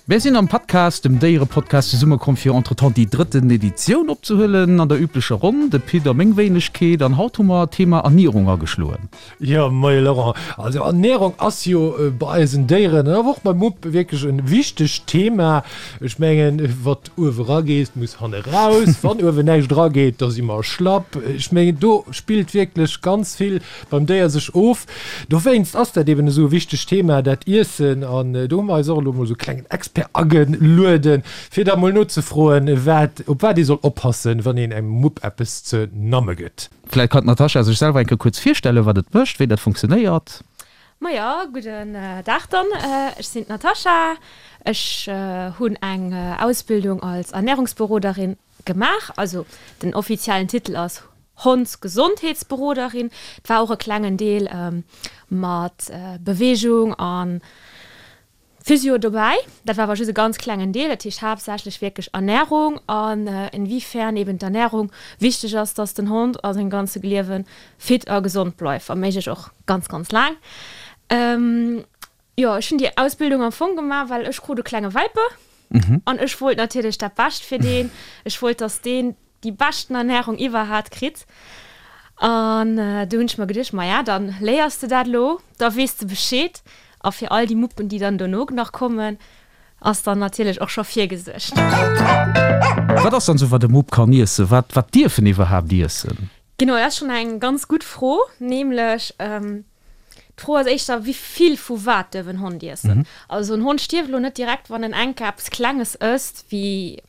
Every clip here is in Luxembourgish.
Mir sinn am Podcast, dem Déierepodcast, zesummekomm fir entretemps déi drëtten Editioun opzehuelen an der üblecher Ronn, de Pit a meng Wéinegkeet. An haut hu mer d'Thema Ernierung ageschloen. Jo, moie Laurent. Also Ernierung ass jo bei eisen Déieren an awer och beim Mupp wierklech e wichtegt Thema. Ech mengen, wat uewe rageet, muss hanne raus. Wann uewen näischt erageet, da si mer schlapp. Ech mengen, do spillt wierklech ganz vill beim Déier sech of. Dowéinst ass dat eben esou e wichtegt Thema, dat Iessen. An do hu mer eis och elo mol esou e klengen Expert agelueden, fir da mol nozefroen, wat, op wat ee soll oppassen, wann een engem Mupp eppes ze namme gëtt. Vläit kann d'Natascha sech selwer eng Kéier kuerz virstellen, wat et mécht, wéi dat funktionéiert. Majo, gudden Dag dann. Ech sinn d'Natascha. Ech hunn eng Ausbildung als Ernährungsberoderin gemaach. Also den offiziellen Titel ass Hondsgesondheetsberoderin. Et war och e klengen Deel mat Beweegung a Physio dobäi. Dat war awer just e ganz klengen Deel. Dat heescht haaptsächlech wierklech Ernärung an inwiefern eben d'Ernärung wichteg ass, dass den Hond a sengem ganze Liewe fit a gesond bleift, wa méiglech och ganz, ganz laang. Jo, ech hunn déi Ausbildung am Fong gemaach, well ech krut e klenge Welpe an ech wollt natierlech dat Bescht fir deen. Ech wollt, dass deen déi beschten Ernärung iwwerhaat kritt. An du hunn ech mer geduecht, maja, dann léiers de dat elo, da weess de Bescheed. A fir all déi Muppen, déi dann dono nach kommen, ass dann natierlech och scho virgesuergt. Wat ass dann esou, wat e Mupp kann iessen? Wat, wat dierf en iwwerhaapt iessen? Genau, dat ass schonn eng ganz gutt Fro. Nämlech, d'Fro ass éischter, wéi vill vu wat duerf en Hond iessen? Also en Hond stierft elo net direkt, wann en enk eppes Klenges ësst, wéi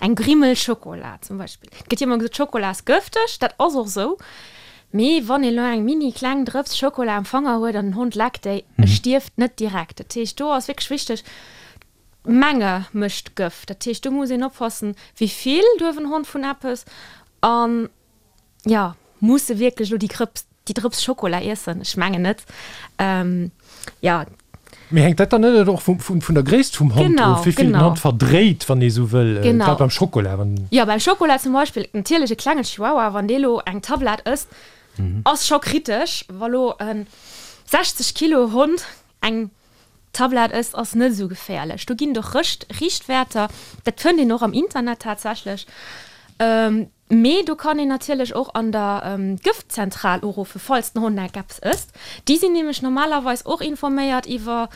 Eng Grimmel Schokola zum Beispill. Et gëtt jo ëmmer gesot, Schokola ass gëfteg. Dat ass och esou. Mee wann een elo eng mini kleng Drëps Schokola am Fanger huet an den Hond leckt déi, e stierft net direkt. Dat heescht, do ass wierklech wichteg, d'Menge mécht d'Gëft. Dat heescht, do muss een oppassen, wéi vill duerf en Hond vun eppes an Jo, muss e wierklech elo déi Krëps, déi Drëps Schokola iessen? Ech mengen net. Jo. Mee hänkt dat dann net och vum, vun der Gréisst vum Hond of, wéi vill den Hond verdréit, wann ee sou wëll, grad beim Schokola? Wann. Jo, beim Schokola zum Beispill, natierlech e klengen Chihuahua, wann dee lo eng Tablett ësst, ass scho kritesch. Wa lo e 60 Kilo Hond eng Tablett ësst, ass net esou geféierlech. Do ginn et och Rëscht, Richtwäerter, dat fënnt een och am Internet tatsächlech. Mee do kann een natierlech och an der Gëftzentral uruffen, falls den Hond enk eppes ësst. Déi sinn nämlech normalerweis och informéiert iwwer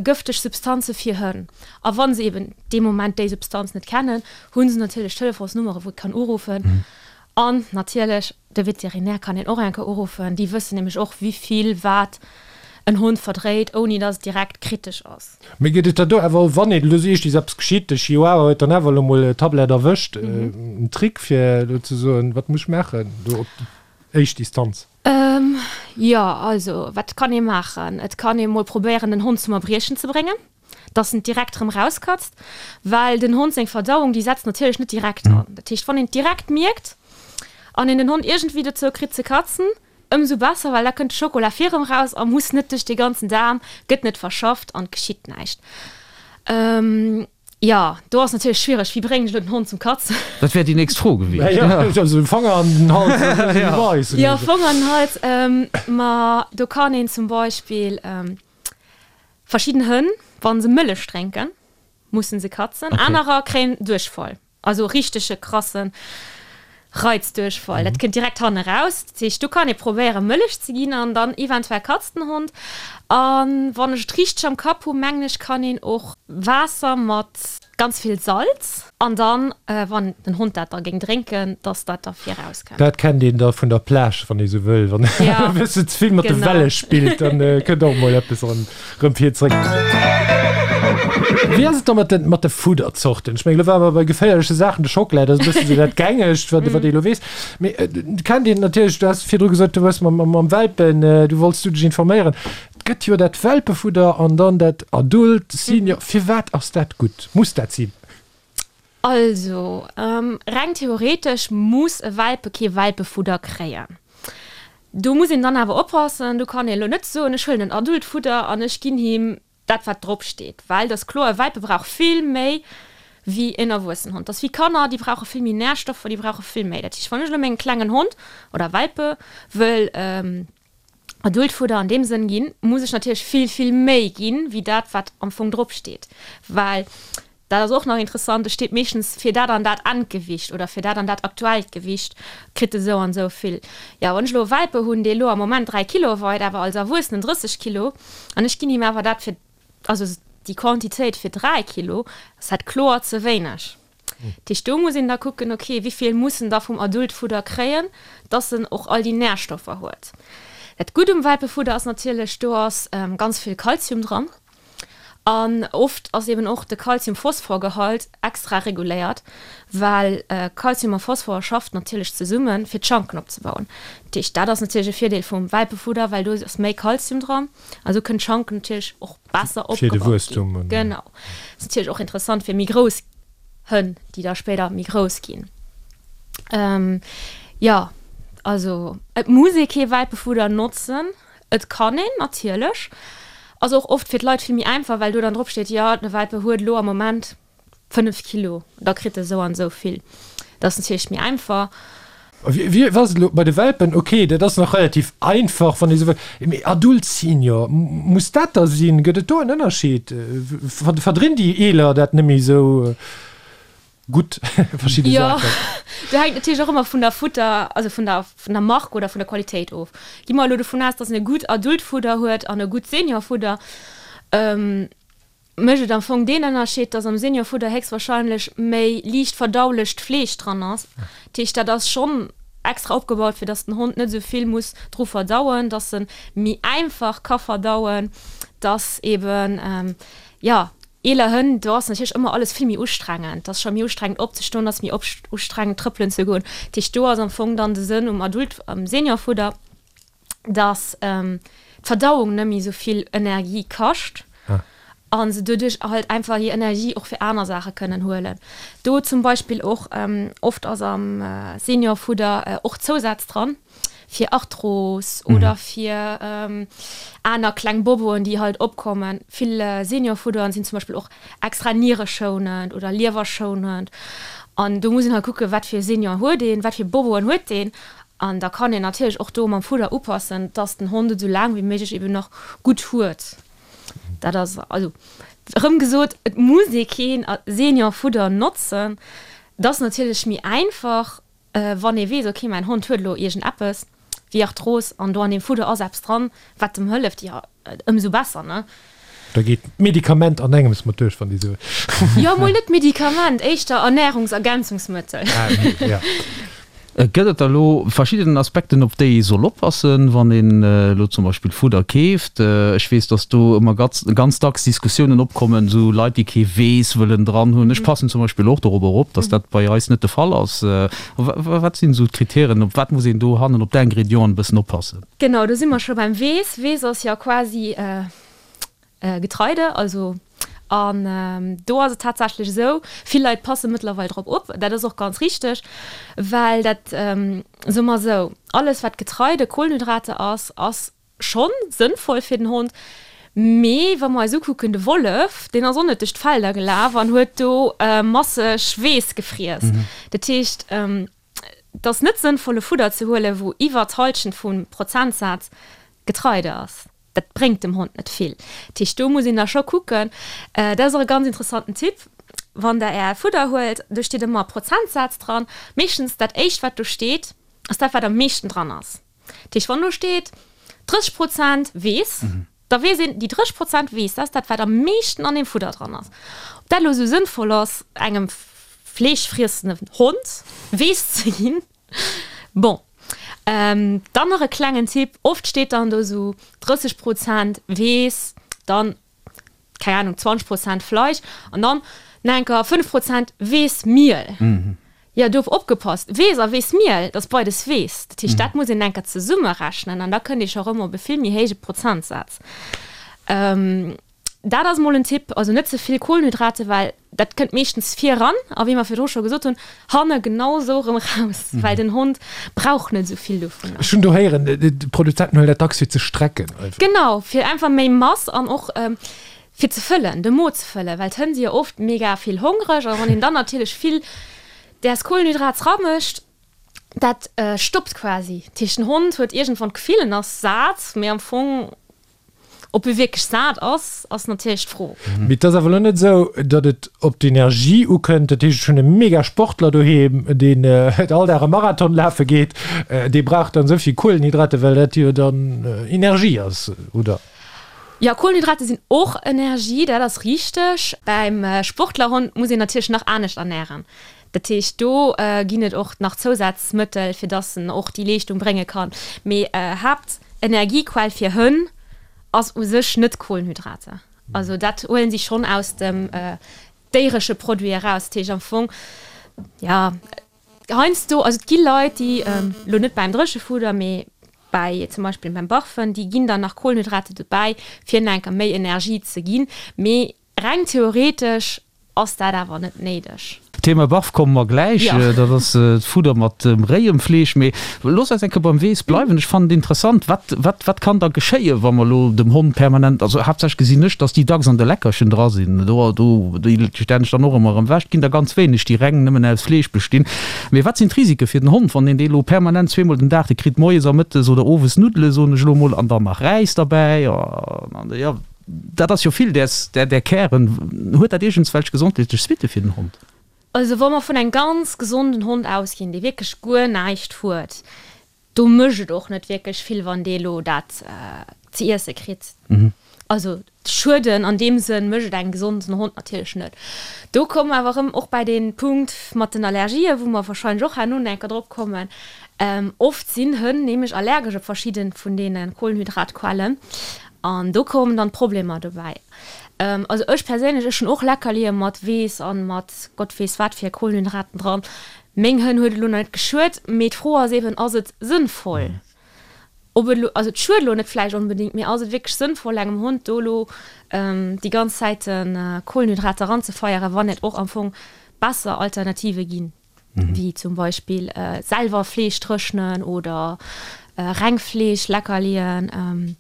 gëfteg Substanze fir Hënn. A wa se eben dee Moment déi Substanz net kennen, hu se natierlech Telefonsnummere wou ee kann uruffen. An natierlech de Veterinär kann een och eng Kéier uruffen. Déi wëssen nämlech och, wéi vill wat en Hond verdréit, ouni datt et direkt kritesch ass. Mee gëtt et da do awer, wann een elo seet, et ass eppes geschitt, de Chihuahua huet dann awer elo mol d'Tablett erwëscht, en Trick fir elo ze soen, wat muss ech maachen do op déi éischt Distanz? Jo, also wat kann ee maachen? Et kann ee mol probéieren, den Hond zum Erbriechen ze bréngen. dass en direkt rëm rauskatzt, well den Hond seng Verdauung, déi setzt natierlech net direkt an. Dat heescht, wann een et direkt mierkt an een den Hond iergendwéi dozou kritt ze katzen, ëmsou besser, well da kënnt de Schokola vir rëm raus a muss net duerch dee ganzen Daarm, gëtt net verschafft an et geschitt näischt. Jo, do ass natierlech schwiereg, wéi bréngen ech elo den Hond zum Katzen? Dat wär déi nächst Fro gewiescht. Also Fanger an den Hals. Jo, Fanger an den Hals. Ma do kann een zum Beispill. Verschidden Hënn, wa se Mëllech drénken, mussen se katzen. Okay. Anerer kréien Duerchfall, also richtege krasse Reizduerchfall. Dat kënnt direkt hanne raus. Dat heescht, do kann ee probéieren, Mëllech ze ginn an dann eventuell katzt den Hond. A wann ech et richteg am Kapp hu, mengen ech, kann een och Waasser mat ganz vill Salz an dann, wann den Hond dat da géing drénken, dass dat da vir rauskënnt. Dat kennt een da vun der Plage, wann ee sou wëll, wann e bëssen ze vill mat de Welle spillt, dann kënnt och mol eppes erëm vir zréck. Wéi ass et da mat de mat de Fudderzorten? Ech mengen, elo ware mer bei geféierleche Saachen, de Schockela, dat ass e bëssen esou dat Gängegt, wat wat ee elo weess. Mee et kennt een natierlech, du has virdru gesot, du hues mam mam Welpen, du wollts du dech informéieren. Et gëtt jo dat Welpefudder an dann dat Adult, Senior. Firwat ass dat gutt? Muss dat sinn? Also, reng theoretesch muss e Welpe kee Welpefudder kréien. Do muss een dann awer oppassen, do kann een elo net soen, ech huelen en Adultfudder an ech ginn him dat wat drop steet, well et ass kloer, e Welpe brauch vill méi wéi en erwuessen Hond. Dat ass wéi Kanner, déi brauche vill méi Närstoffer, déi brauche vill méi. Dat heescht, wann ech elo mengem klengen Hond oder Welpe wëll. Adultfudder an deem Sënn ginn, muss ech natierlech vill, vill méi ginn, wéi dat, wat am Fong drop steet. Well dat ass och nach interessant, et steet meeschtens fir dat an dat Endgewicht oder fir dat an dat aktuellt Gewicht kritt e sou an sou vill. Jo, wann ech elo e Welpe hunn, dee elo am Moment 3 Kilo weit, awer als Erwuessenen 30 Kilo, an ech ginn him awer dat fir, also déi Quantitéit fir 3 Kilo, ass dat kloer ze wéineg. Dat heescht, do muss een da kucken, okay, wéi vill muss en da vum Adultfudder kréien, dass en och all déi Närstoffer huet. Dat Gutt um Welpefudder ass natierlech, do ass ganz vill Kalzium dran an oft ass eben och de Kalzium-Phosphor-Gehalt extra reguléiert, well Kalzium a Phosphor schafft natierlech zesummen, fir d'Schanken opzebauen. Dat heescht, dat ass natierlech e Virdeel vum Welpefudder, well do ass méi Kalzium dran a sou kënnen d'Schanken natierlech och besser Fir de opgebaut ginn. Wuesstum. Genau. Ass natierlech och interessant fir méi grouss Hënn, déi da spéider méi grouss ginn. Jo, also et muss ee kee Welpefudder notzen. Et kann een natierlech. Ass och oft fir d'Leit vill méi einfach, well do dann drop steet, jo de Welpe huet elo am Moment 5 Kilo, da kritt e sou an esou vill. Dat ass natierlech méi einfach. Wéi ass et elo bei de Welpen? Ok, dat ass nach relativ einfach, wann ee sou wëll. Mee Adult, Senior, muss dat da sinn? Gëtt et do en Ënnerscheed? Verdrinn déi Eeler dat net méi esou gutt, verschidde Saachen? Jo, do hänkt natierlech och ëmmer vun der Futter, also vun der, vun der Mark oder vun der Qualitéit of. Gi mer elo dovun aus, dass en e gutt Adultfudder huet an e gutt Seniorfudder. Mécht et am Fong deen Ënnerscheed, dass am Seniorfudder héchstwahrscheinlech méi liicht verdaulecht Fleesch dran ass. Dat heescht, dat ass schonn extra opgebaut, fir dass den Hond net esou vill muss dru verdauen, dass en méi einfach ka verdauen, dass eben, jo, eeler Hënn, do ass natierlech ëmmer alles vill méi ustrengend. Et ass scho méi ustrengend opzestoen, et ass méi ustrengend trëppelen ze goen. Dat heescht, do ass am Fong dann de Sënn um Adult, am Seniorfudder, dass d'Verdauung net méi esou vill Energie kascht a se doduerch halt einfach hir Energie och fir aner Saache kënnen huelen. Do zum Beispill och, oft ass am Seniorfudder och Zousätz dran fir Arthros oder fir aner kleng Boboen, déi halt opkommen. Vill Seniorfudderen sinn zum Beispill och extra niereschounend oder liewerschounend an do muss een halt kucken, wat fir Senior huet een, wat fir Boboen huet deen An da kann een natierlech och do mam Fudder upassen, dass den Hond et esou laang wéi méiglech eben nach gutt huet. Dat ass also erëm gesot, et muss ee keen Seniorfudder notzen. Et ass natierlech méi einfach, wann ee weess, okay, mäin Hond huet elo iergendeppes wéi Arthros an do an deem Fudder ass eppes dran, wat em hëlleft, jo, Ëmsou besser, ne? Da geet d'Medikament an engems mat duerch, wann déi sou. Jo, mol net Medikament, éischter Ernährungsergänzungsmëttel. Ah, okay, ja. Gëtt et da lo verschidden Aspekten, op déi ee soll oppassen, wann een elo zum Beispill Fudder keeft? Ech weess, dass do ëmmer ganz dacks Diskussiounen opkommen, esou Leit, déi kee Weess wëllen dran hunn. Ech passen zum Beispill och dorobber op, dass dat bei eis net de Fall ass. Wat sinn esou d'Kritären, op wat muss een do hannen op d'Ingrédienten e bëssen oppassen? Genau, do si mer scho beim Weess. Weess ass jo quasi Getreide, also an do ass et tatsächlech esou, vill Leit passe mëttlerweil drop op, dat ass och ganz richteg, well dat, soe mer esou, alles wat Getreide, Kohlenhydrate ass, ass schonn sënnvoll fir den Hond, mee wa mer eis ukucken, de Wollef, deen ass och net duerch d'Felder gelaf an huet do masseg Weess gefriess. Dat heescht, Et ass net sënnvoll e Fudder ze huelen, wou iwwer d'Halschent vum Prozentsaz Getreide ass. Dat bréngt dem Hond net vill. Dat heescht, do muss een da scho kucken. Dat ass och e ganz interessanten Tipp, wann der Är Fudder huelt, do steet ëmmer e Prozentsaz dran. Meeschtens dat éischt wat do steet, ass dat wat am meeschten dran ass. Dat heescht, wann do steet 30 Prozent Weess, Da weess een, déi 30 Prozent Weess, dat ass dat, wat am meeschten an deem Fudder dran ass. Ob dat elo esou sënnvoll ass, engem fleeschfriessenden Hond Weess ze ginn, bon. Dann nach e klengen Tipp, Oft steet dann do esou 30 Prozent Weess, dann, keng Ahnung, 20 Prozent Fleisch an dann nach eng Kéier 5 Prozent Weessmiel. Jo, do opgepasst, Weess a Weessmiel, dat ass beides Weess. Dat heescht, dat muss een enker zesummerechnen an da kënnt ee scho rëm op e vill méi héije Prozentsaz. Dat ass mol en Tipp, also net ze vill Kohlenhydrate, well dat kënnt meeschtens vir eran a wéi mer virdru scho gesot hunn, hanne genau esou erëm eraus, well den Hond brauch net esou vill dovunner. Ech hunn do héieren, d'Produzenten huelen dat dacks fir ze strecken einfach. Genau, fir einfach méi Mass an och fir ze fëllen, de Mo ze fëllen, well d'Hënn si jo oft mega vill hongreg a wann een dann natierlech vill däers Kohlenhydrats ramécht. Dat stoppt quasi. Dat heescht, den Hond huet iergendwann d'Gefill, en ass sat, mee am Fong, ob e wierklech sat ass, ass natierlech d'Fro. Mee et ass awer elo net esou, datt et op d'Energie ukënnt. Dat heescht, ech hunn e mega Sportler doheem, deen all Dag e Marathon lafe geet, dee brauch dann esou vill Kuelenhydrate, well dat jo dann Energie ass, oder? Jo, Kuelenhydrate sinn och Energie, dat ass richteg. Beim Sportlerhond muss een natierlech nach anescht ernären. Dat heescht, do ginn et och nach Zousazmëttel, fir dass en och déi Leeschtung brénge kann. Mee Haaptenergiequell fir Hënn ass u sech net Kohlenhydrater. Also dat huelen si schonn aus dem déieresche Produit eraus. Dat heescht am Fong, jo, heiansdo, also et gi Leit, déi, elo net beim Dréchefudder, mee bäi zum Beispill beim Barfen, déi ginn dann nach Kohlenhydrate dobäi, fir nach enker méi Energie ze ginn. Mee reng theoretesch Ass dat awer net néideg. Thema Barf komme mer gläich, dat ass d'Fudder mat dem réiem Fleesch. Mee looss eis eng Kéier beim Weess bleiwen. Ech fannen et interessant, wat, wat, wat kann da geschéien, wa mer elo dem Hond permanent, also haaptsächlech gesinn ech, dass déi dacks an de Leckerchen dra sinn, do, do, déi stellen ech dann och ëmmer erëm ewech. Et ginn der ganz wéineg, déi reng nëmmen aus Fleesch bestinn. Mee wat sinn d'Risike fir den Hond, wann een dee elo permanent zweemol den Dag, dee kritt moies a mëttes oder owes Nuddele, soen ech elo emol, an dann nach Räis derbäi, an, jo. Dat ass jo vill däers, där, där Kären. Huet dat iergendswelch gesondheetlech Suitte fir den Hond? Also wa mer vun engem ganz gesonden Hond ausginn, dee wierklech guer näischt huet, do mécht et och net wierklech vill, wann dee elo dat ze iesse kritt. Also schueden an deem Sënn mécht et engem gesonden Hond natierlech net. Do komme mer awer erëm och bäi dee Punkt mat den Allergien, wou mer warscheinlech och herno nach eng Kéier drop kommen. Oft sinn Hënn nämlech allergesch op verschidde vun deene Kohlenhydratquellen. An do kommen dann d'Problemer dobäi. Also ech perséinlech, ech hunn och Leckerlie mat Weess an mat Gott weess wat fir Kohlenhydraten dran. Meng Hënn huet et elo nach net geschuet, mee d'Fro ass eben, ass et sënnvoll? Ob et elo, also et schuet elo net vläicht onbedéngt, mee ass et wierklech sënnvoll engem Hond do elo déi ganz Zäite Kohlenhydrater eranzefeieren, wann et och am Fong besser Alternative ginn? wéi zum Beispill selwer Fleesch dréchnen oder reng Fleesch Leckerlien.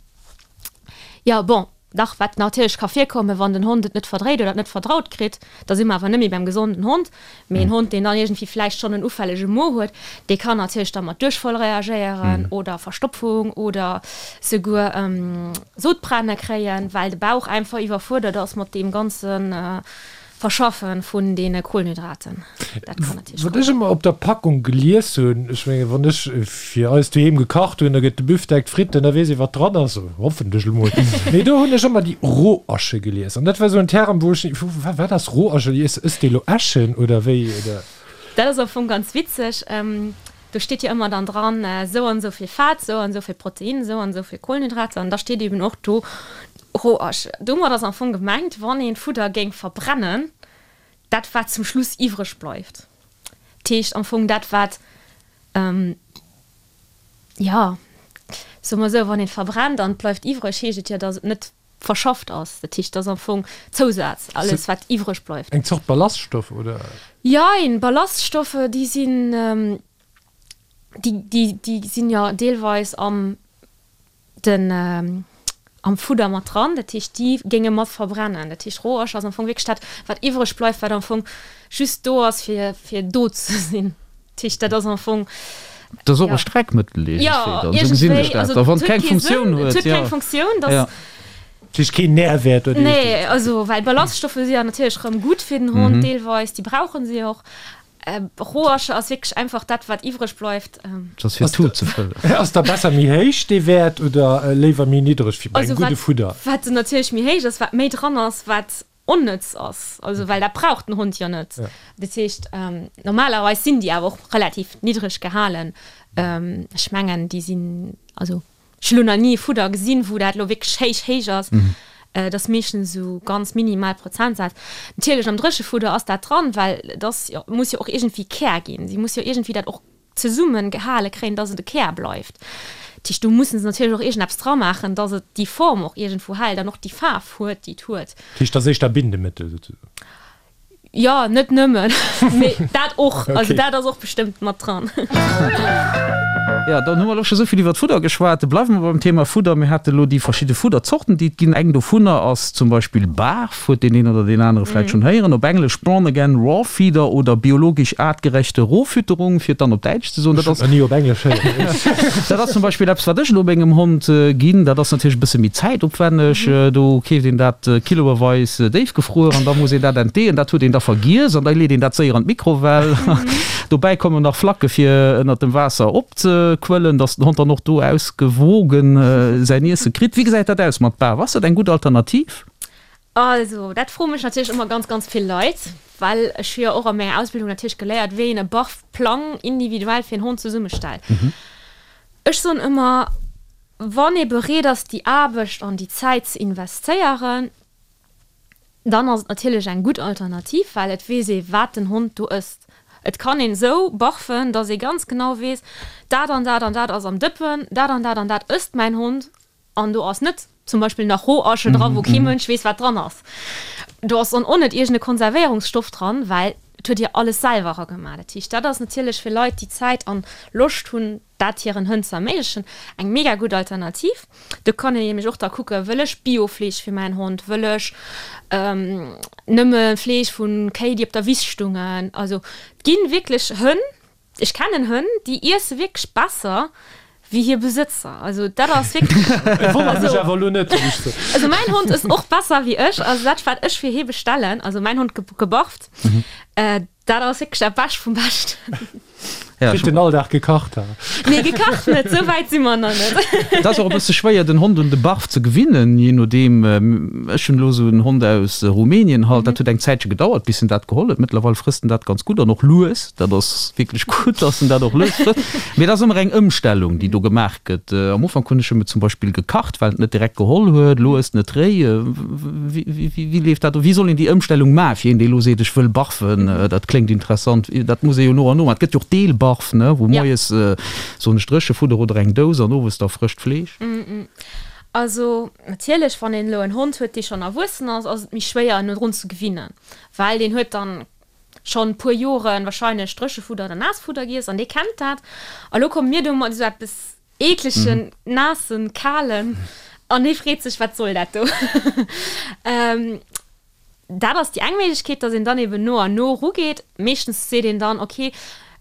Jo bon, dach wat natierlech ka virkommen, wann den Hond et net verdréit oder et net verdraut kritt, da si mer awer net méi beim gesonden Hond, mee en Hond deen dann iergendwéi vläicht schonn en ufällege Mo huet, dee kann natierlech da mat Duerchfall reagéieren oder Verstopfung oder souguer Sodbrenne kréien, well de Bauch einfach iwwerfuerdert ass mat deem ganzen Verschaffe vun deene Kohlenhydraten. Dat kann natierlech Wat ech ëmmer op der Packung gelies hunn, ech menge wann ech fir eis doheem gekacht hunn, da gëtt de Büftek, d'Fritten, da weess ee wat dran ass, hoffentlech emol. Mee do hunn ech ëmmer déi Rohasche gelies an dat war esou en Term, wou ech, wat ass Rohasche? Ësst dee lo Äschen oder wéi oder? Dat ass am Fong ganz witzeg. Do steet jo ëmmer dann dran, esou an esou vill Fett, esou an esou vill Protein, esou an esou vill Kohlenhydrater an da steet eben och do Rohasch. Domat ass am Fong gemengt, wann een Fudder géing verbrennen, dat wat zum Schluss iwwreg bleift. Dat heescht am Fong dat wat, jo, soe mer esou, wann een verbrennt an et bleift iwwreg, heescht et jo, datt et net verschafft ass. Dat heescht, et ass am Fong Zousaz, alles wat iwwreg bleift. Eng Zort Ballaststoff, oder? Jein, Ballaststoffe déi sinn, déi, déi, déi sinn jo deelweis am den am Fudder mat dran, dat heescht déi géinge mat verbrennen. Dat heescht Rohasch ass am Fong wierklech dat wat iwwreg bleift, wat am Fong just do ass fir fir do ze sinn. Dat heescht dat ass am Fong. Dat ass och e Streckmëttel iergendwéi dann, esou gesinn ech dat. A wann et keng Funktioun huet, jo. Et huet keng Funktioun, dat. Dat heescht keen Nährwäert oder iergendwéi. Nee, also well Ballaststoffe si ja natierlech rëm gutt fir den Hond deelweis, déi brauche si och. Rohasche ass wierklech einfach dat wat iwwreg bleift. Dat ass fir d'Tut ze fëllen. Ass da besser méi héich dee Wäert oder léiwer méi niddreg fir bei engem gudde Fudder? Wat natierlech méi héich ass, wat méi dran ass, wat onnëtz ass, also well dat brauch den Hond jo net. Dat heescht normalerweis sinn déi awer och relativ niddreg gehalen. Ech mengen déi sinn, also Ech hunn elo nach ni e Fudder gesinn, wou dat elo wierklech héich, héich ass. Et ass meeschtens esou ganz minimal Prozentsaz. Natierlech am Dréchefudder ass dat dran, well et ass jo, muss jo och iergendwéi Kär ginn. Si muss jo iergendwéi dat och zesumme gehale kréien, dass et e Kär bleift. Dat heescht, do musse se natierlech och iergendeppes dramaachen, dass et déi Form och iergendwou hält an och déi Faarf huet, déi et huet. Dat heescht, dat ass éischter Bindemëttel souzesoen? Jo, net nëmmen, mee dat och. Also dat ass och bestëmmt mat dran. Jo, dann hu mer elo scho souvill iwwert Fudder geschwat. Bleiwe mer beim Thema Fudder. Mir hate elo déi verschidde Fudderzorten, déi et ginn. Eng dovunner ass zum Beispill Barf, huet deen een oder deen anere vläicht schonn héieren. Op Englesch Born Again Raw Feeder oder biologisch aartgerechte Rohfütterung, fir et dann op Däitsch ze soen. Dat ass. Ech hunn et nach ni op Englesch héieren. Dat ass zum Beispill eppes, wat ech elo mengem Hond ginn. Dat ass natierlech e bësse méi zäitopwänneg. Do keeft een dat kiloeweis déifgefruer an da muss een dat entdeeën. Dat huet een da vergiess an da leet een dat séier an d'Mikrowell. Dobäi kommen nach Flacke fir ënnert dem Waasser opzequëllen, dass den Hond dann och do ausgewogen säin Iesse kritt. Wéi gesäit dat aus mat Barf? Ass dat eng gutt Alternativ? Also, dat froe mech natierlech ëmmer ganz, ganz vill Leit, well ech hu jo och a menger Ausbildung natierlech geléiert, wéi een e Barfplang individuell fir en Hond zesummestellt. Ech soen ëmmer, wann ee bereet ass, déi Aarbecht an déi Zäit ze investéieren, dann ass et natierlech eng gutt Alternativ, well et weess ee, wat den Hond do ësst. Et kann een esou barfen, dass ee ganz genau weess, dat an dat an dat ass am Dëppen, dat an dat an dat ësst mäin Hond An do ass net zum Beispill nach Rohasche dran, wou kee Mënsch weess, wat dran ass. Do ass dann och net iergend e Konservéierungsstoff dran, well et huet Dir alles selwer eragemaach. Dat heescht, dat ass natierlech fir Leit, déi Zäit an Loscht hunn, dat hiren Hënn ze erméiglechen, eng mega gutt Alternativ. Do kann een nämlech och da kucken, Wëll ech Biofleesch fir mäin Hond? Wëll ech nëmme Fleesch vu Kéi, déi op der Wiss stungen? Also et gi wierklech Hënn, Ech kennen Hënn, déi iesse wierklech besser wéi hir Besëtzer. Also dat ass wierklech. Et wonnert mech awer elo net, muss ech soen. Also mäin Hond ësst och besser wéi ech. Also dat wat ech fir hie bestellen, also mäin Hond gebarft, dat ass wierklech dat Bescht vum Beschten. Kritt den all Dag gekacht, ha? Nee, gekacht net, esou wäit si mer nach net. Et ass och e bësse schwéier den Hond un de Barf ze gewinnen, jee nodeem. Ech hunn elo esou en Hond aus Rumänien halt, dat huet eng Zäitche gedauert bis en dat geholl huet. Mëttlerweil frësst en dat ganz gutt an och lues. Dat ass wierklech gutt, dass en dat och lues frësst. Mee et ass ëmmer eng Ëmstellung, déi do gemaach gëtt. Am Ufank hunn ech em et zum Beispill gekacht, well en et net direkt geholl huet. Elo ësst en et réi. Wéi leeft dat of? Wéi soll een déi Ëmstellung maachen, fir een, dee elo seet, ech wëll barfen, dat kléngt interessant. Dat muss ee jo no an no maachen. Et gëtt jo och Deelbarf, ne, wou moies, soen ech, Dréchefudder oder eng Dous an owes da frëscht Fleesch. Also natierlech, wann een elo en Hond huet, dee schonn erwuessen ass, ass et méi schwéier, en drun ze gewinnen, well deen huet dann schonn puer Joren wahrscheinlech Dréchefudder oder Naassfudder giess an dee kennt dat. A lo komme mir do mat esou eppes eeklegen, naassen, kalen an dee freet sech, wat soll dat do? Dat ass déi eng Méiglechkeet, dass een dann eben no an no erugeet. Meeschtens seet een dann, ok,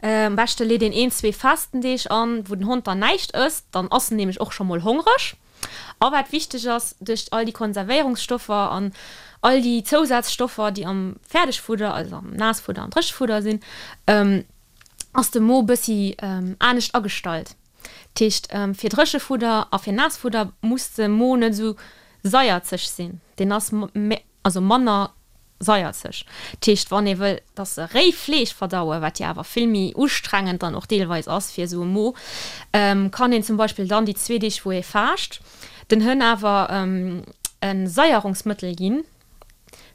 am beschte leet een een, zwee Fastendeeg an, wou den Hond dann näischt ësst, dann ass en nämlech och scho mol hongreg. A wat wichteg ass, duerch all déi Konservéierungsstoffer an all déi Zousazstoffer, déi am Fäerdegfudder, also am Naassfudder an Dréchefudder sinn, ass de Mo bëssi anescht agestallt. Dat heescht, fir Dréchefudder a fir Naassfudder muss de Mo net esou saierzeg sinn, deen ass also manner saierzeg. Dat heescht, wann ee wëll, dass se réi Fleesch verdauen, wat jo awer vill méi ustrengend dann och deelweis ass fir esou e Mo, kann een zum Beispill dann déi zwee Deeg, wou ee faascht, den Hënn awer e Saierungsmëttel ginn,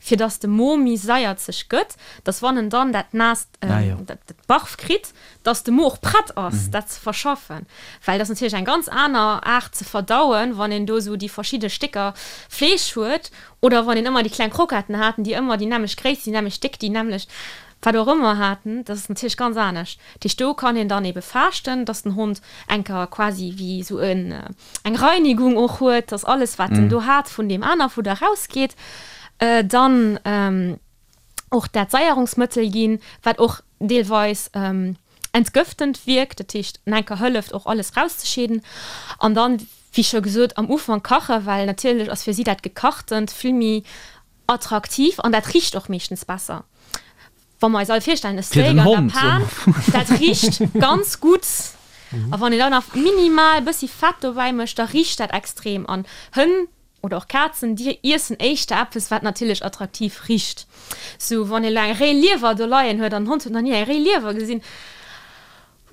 fir dass de Mo méi saierzeg gëtt, dass wann en dann dat naasst, dat Barf kritt, dass de Mo och prett ass, dat ze verschaffen. Well dat ass natierlech eng ganz aner Aart ze verdauen, wann een do esou déi verschidde Stécker Fleesch huet Oder wann een ëmmer déi kleng Kroketten haten, déi ëmmer déi nämmlecht Gréisst, déi nämmlecht Déckt, déi nämmlecht wat och ëmmer haten, dat ass natierlech ganz anescht. Dat heescht, do kann een dann ebe faaschten, dass den Hond enker quasi wéi esou en eng Reinigung och huet, dass alles, wat en do hat, vun deem aner Fudder erausgeet. Dann och dat Saierungsmëttel ginn, wat och deelweis entgëftend wierkt, dat heescht en enker hëlleft och alles rauszescheeden. An dann, wéi scho gesot, am Ufank kachen, well natierlech ass fir si dat Gekachtent vill méi attraktiv an dat richt och meeschtens besser. Wa mer eis all virstellen, e Steak an der Pan, dat richt ganz gutt. A wann een dann nach minimal e bëssi Fett dobäi mécht, da richt dat extrem. An Hënn oder och Kazen, déi iessen éischter eppes, wat natierlech attraktiv richt. Sou, wann een elo eng réi Liewer do leien huet an den Hond huet nach ni eng réi Liewer gesinn,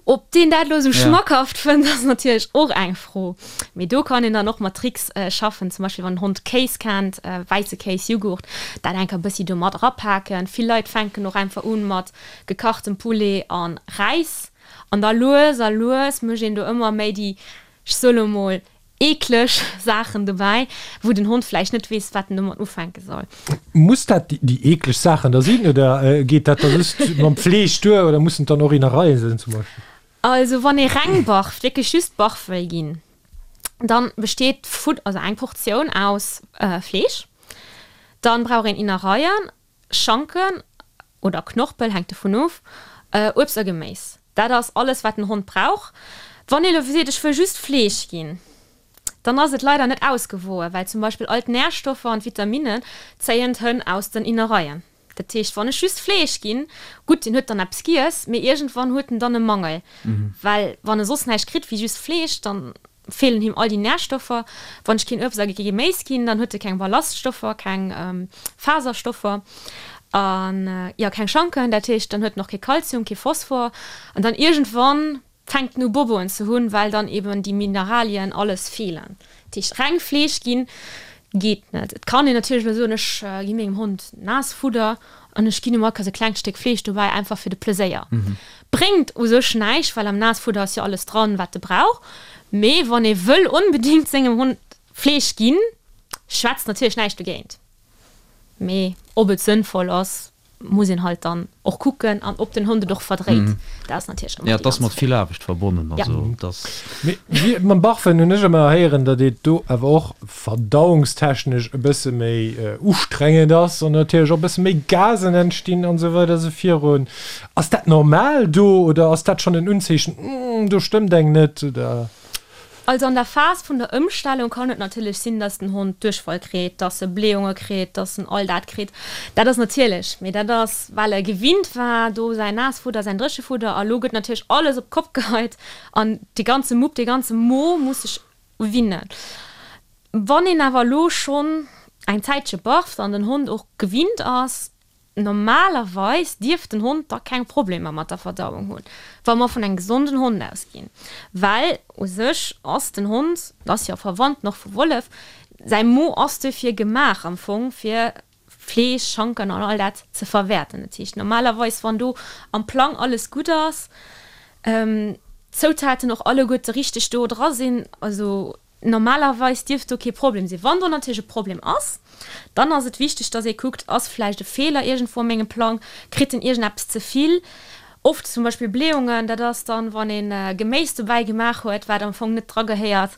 ob deen dat elo esou schmackhaft fënnt, ass natierlech och eng Fro. Mee do kann een dann och mat Tricks schaffen, zum Beispill wann den Hond Kéis kennt, wäisse Kéis, Jughurt, dat enker e bëssi do mat erapaken. Vill Leit fänken och einfach un mat gekachtem Poulet a Räis an da lues a lues mécht een do ëmmer méi déi, ech soe lo mol, Eekleg Saachen dobäi, wou den Hond vläicht net weess, wat en domat ufänke soll. Muss dat déi eekleg Saachen da sinn oder geet dat da just mam Fleesch duer oder mussen et dann och Innereien sinn zum Beispill? Also wann ee reng barft, wierklech just Barf wëll ginn, dann besteet d'Fudder, also eng Portioun aus Fleesch, dann brauch een Innereien, Schanken oder Knorpel, hänkt dovun of, Uebst a Geméis. Dat ass alles wat den Hond brauch. Wann ee lo seet ech wëll just Fleesch ginn, dann ass et leider net ausgewoe, well zum Beispill all d'Närstoffer an d'Vitaminen zéien d'Hënn aus den Innereien. Dat heescht wann ech just Fleesch ginn, gutt deen huet dann eppes giess, mee iergendwann huet en dann e Mangel, well wann e soss näischt kritt wéi just Fleesch, dann feelen him all déi Närstoffer. Wann ech keen Uebst a kee Geméis ginn, dann huet e keng Ballaststoffer, keng Faserstoffer an jo keng Schanken. Dat heescht, dann huet en och kee Kalzium, kee Phosphor an dann iergendwann fänkt en u Boboen ze hunn, well dann eben déi Mineralien alles feelen. Dat heescht, reng Fleesch ginn geet net. Et kann een natierlech elo soen, ech gi mengem Hond Naassfudder an ech ginn em all Kéiers e klengt Stéck Fleesch dobäi, einfach fir de Pleséier. Bréngt u sech näischt, well am Naassfudder ass jo alles dran, wat e brauch. Mee wann ee wëll onbedéngt sengem Hond Fleesch ginn, schwätzt natierlech näischt dogéint. Mee ob et sënnvoll ass, muss een halt dann och kucken an ob den Hond et och verdréit. Dat ass natierlech ëmmer déi Ja, et ass ganz mat Fro. vill Aarbecht verbonnen. Ja. Also, et ass. Mee wéi mam Barfen hunn ech ëmmer héieren, datt et do awer och verdauungstechnesch e bësse méi ustrengend ass an natierlech och e bësse méi Gasen entstinn an esou weider esou virun. Ass dat normal do oder ass dat schonn en Unzeechen, Hm, do stëmmt eng net oder? Also an der Phas vun der Ëmstellung kann et natierlech sinn, dass den Hond Duerchfall kritt, dass e Blähunge kritt, dass en all dat kritt. Dat ass natierlech, mee dat ass well e gewinnt war do säin Naassfudder, säin Dréchefudder a lo gëtt natierlech alles op d'Kopp geheit an dee ganze Mupp, dee ganze Mo muss sech winnen. Wann een awer elo schonn eng Zäitche barft an den Hond och gewinnt ass, normalerweis dierft den Hond da keng Problemer mat der Verdauung hunn, wa mer vun engem gesonden Hond ausginn, well u sech ass den Hond, ass jo verwandt och vu Wollef, säi Mo ass duerfir gemaach am Fong fir Fleesch, Schanken an all dat ze verwäerten. Dat heescht normalerweis, wann do am Plang alles gutt ass, d'Zoutaten och alleguerte richteg do dra sinn, also normalerweis dierft do kee Problem sinn. Wann do natierlech e Problem ass, dann ass et wichteg, dass ee kuckt, ass vläicht e Feeler iergendwou a mengem Plang, kritt en iergendeppes ze vill? Oft zum Beispill Blähungen, dat ass dann, wann ee Geméis dobäi gemaach huet, wat am Fong net dra gehéiert.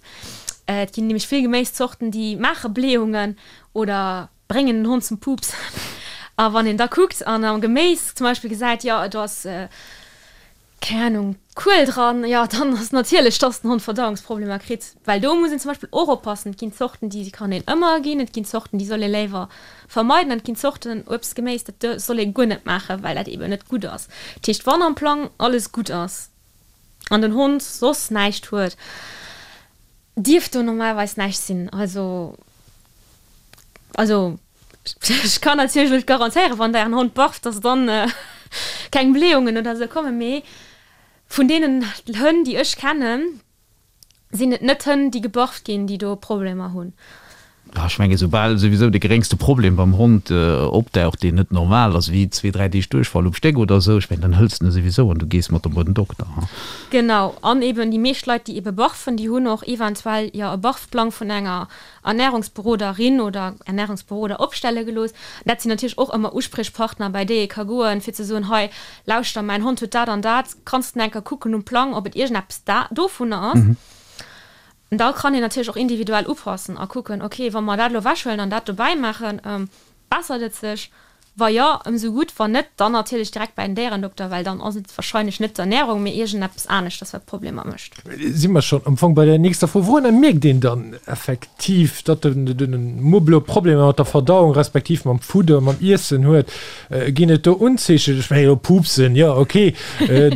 Et ginn nämlech vill Geméiszorten, déi maache Blähungen oder bréngen den Hond zum Pups. A wann een da kuckt an am Geméis zum Beispill gesäit, jo do ass, keng Ahnung, Kuel dran, jo dann ass natierlech, dass den Hond Verdauungsproblemer kritt. Well do muss een zum Beispill och oppassen, et ginn Zorten, déi kann een ëmmer ginn, et ginn Zorten, déi soll ee léiwer vermeiden an et ginn Zorten, Uebst, Geméis, dat soll ee guer net maachen, well dat eeben net gutt ass. Dat heescht, wann am Plang alles gutt ass an den Hond soss näischt huet, dierft do normalerweis näischt sinn. Also, also ech kann natierlech net garantéieren, wann der ären Hond barft, dass dann keng Blähungen oder sou kommen, mee vun deenen Hënn, déi ech kennen, sinn et net Hënn, déi gebarft ginn, déi do Problemer hunn. Ah, ech mengen, soubal souwisou de geréngste Problem beim Hond opdaucht, deen net normal ass, wéi zwee, dräi Deeg Duerchfall um Stéck oder esou, ech mengen, dann hëls de en souwisou an du gees mat em bei den Dokter. Genau. An eben déi meescht Leit, déi ebe barfen, déi hunn och eventuell jo e Barfplang vun enger Ernährungsberoderin oder Ernährungsberoder opstelle gelooss. Dat sinn natierlech och ëmmer Uspriechpartner, bei déi ee ka goen, fir ze soen, hei, lauschter, mäin Hond huet dat an dat, kanns de eng Kéier kucken um Plang, ob et iergendeppes da dovunner ass. An da kann een natierlech och individuell upassen a kucken, ok, wa mer dat elo ewechhuelen an dat dobäi maachen, bessert et sech? Wa jo, ëmsou gutt, wann net, dann natierlech direkt bei den Déierendokter, well dann ass et warscheinlech net d'Ernärung, mee iergendeppes aneschters, wat Problemer mécht. Si mer schonn am Fong bei der nächster Fro. Wourunner mierkt een dann effektiv, datt de Mupp elo Problemer mat der Verdauung respektiv mam Fudder, mam Iessen huet? Ginn et do Unzeechen? Ech mengen elo Pupsen, jo ok,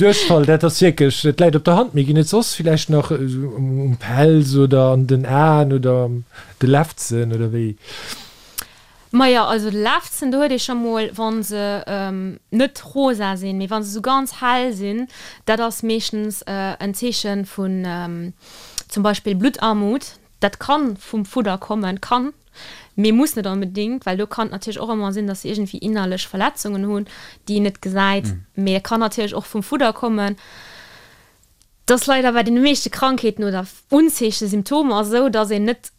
Duerchfall, dat ass wierklech, dat läit op der Hand, mee ginn et soss villäicht nach um Pelz oder an den Aen oder an de Lefzen oder wéi? Majo, also de Lefzen, do huet ee scho mol, wa se net rosa sinn, mee wa se esou ganz hell sinn, dat ass meeschtens en Zeeche vun zum Beispill Bluttarmut. Dat kann vum Fudder kommen, kann, mee muss net onbedingt, well do kann et natierlech och ëmmer sinn, dass se iergendwéi innerlech Verletzungen hunn, déi een net gesäit. Mee et kann natierlech och vum Fudder kommen. Et ass leider bei deene meeschte Krankheeten oder Unzeechen, Symptomer esou, dass een net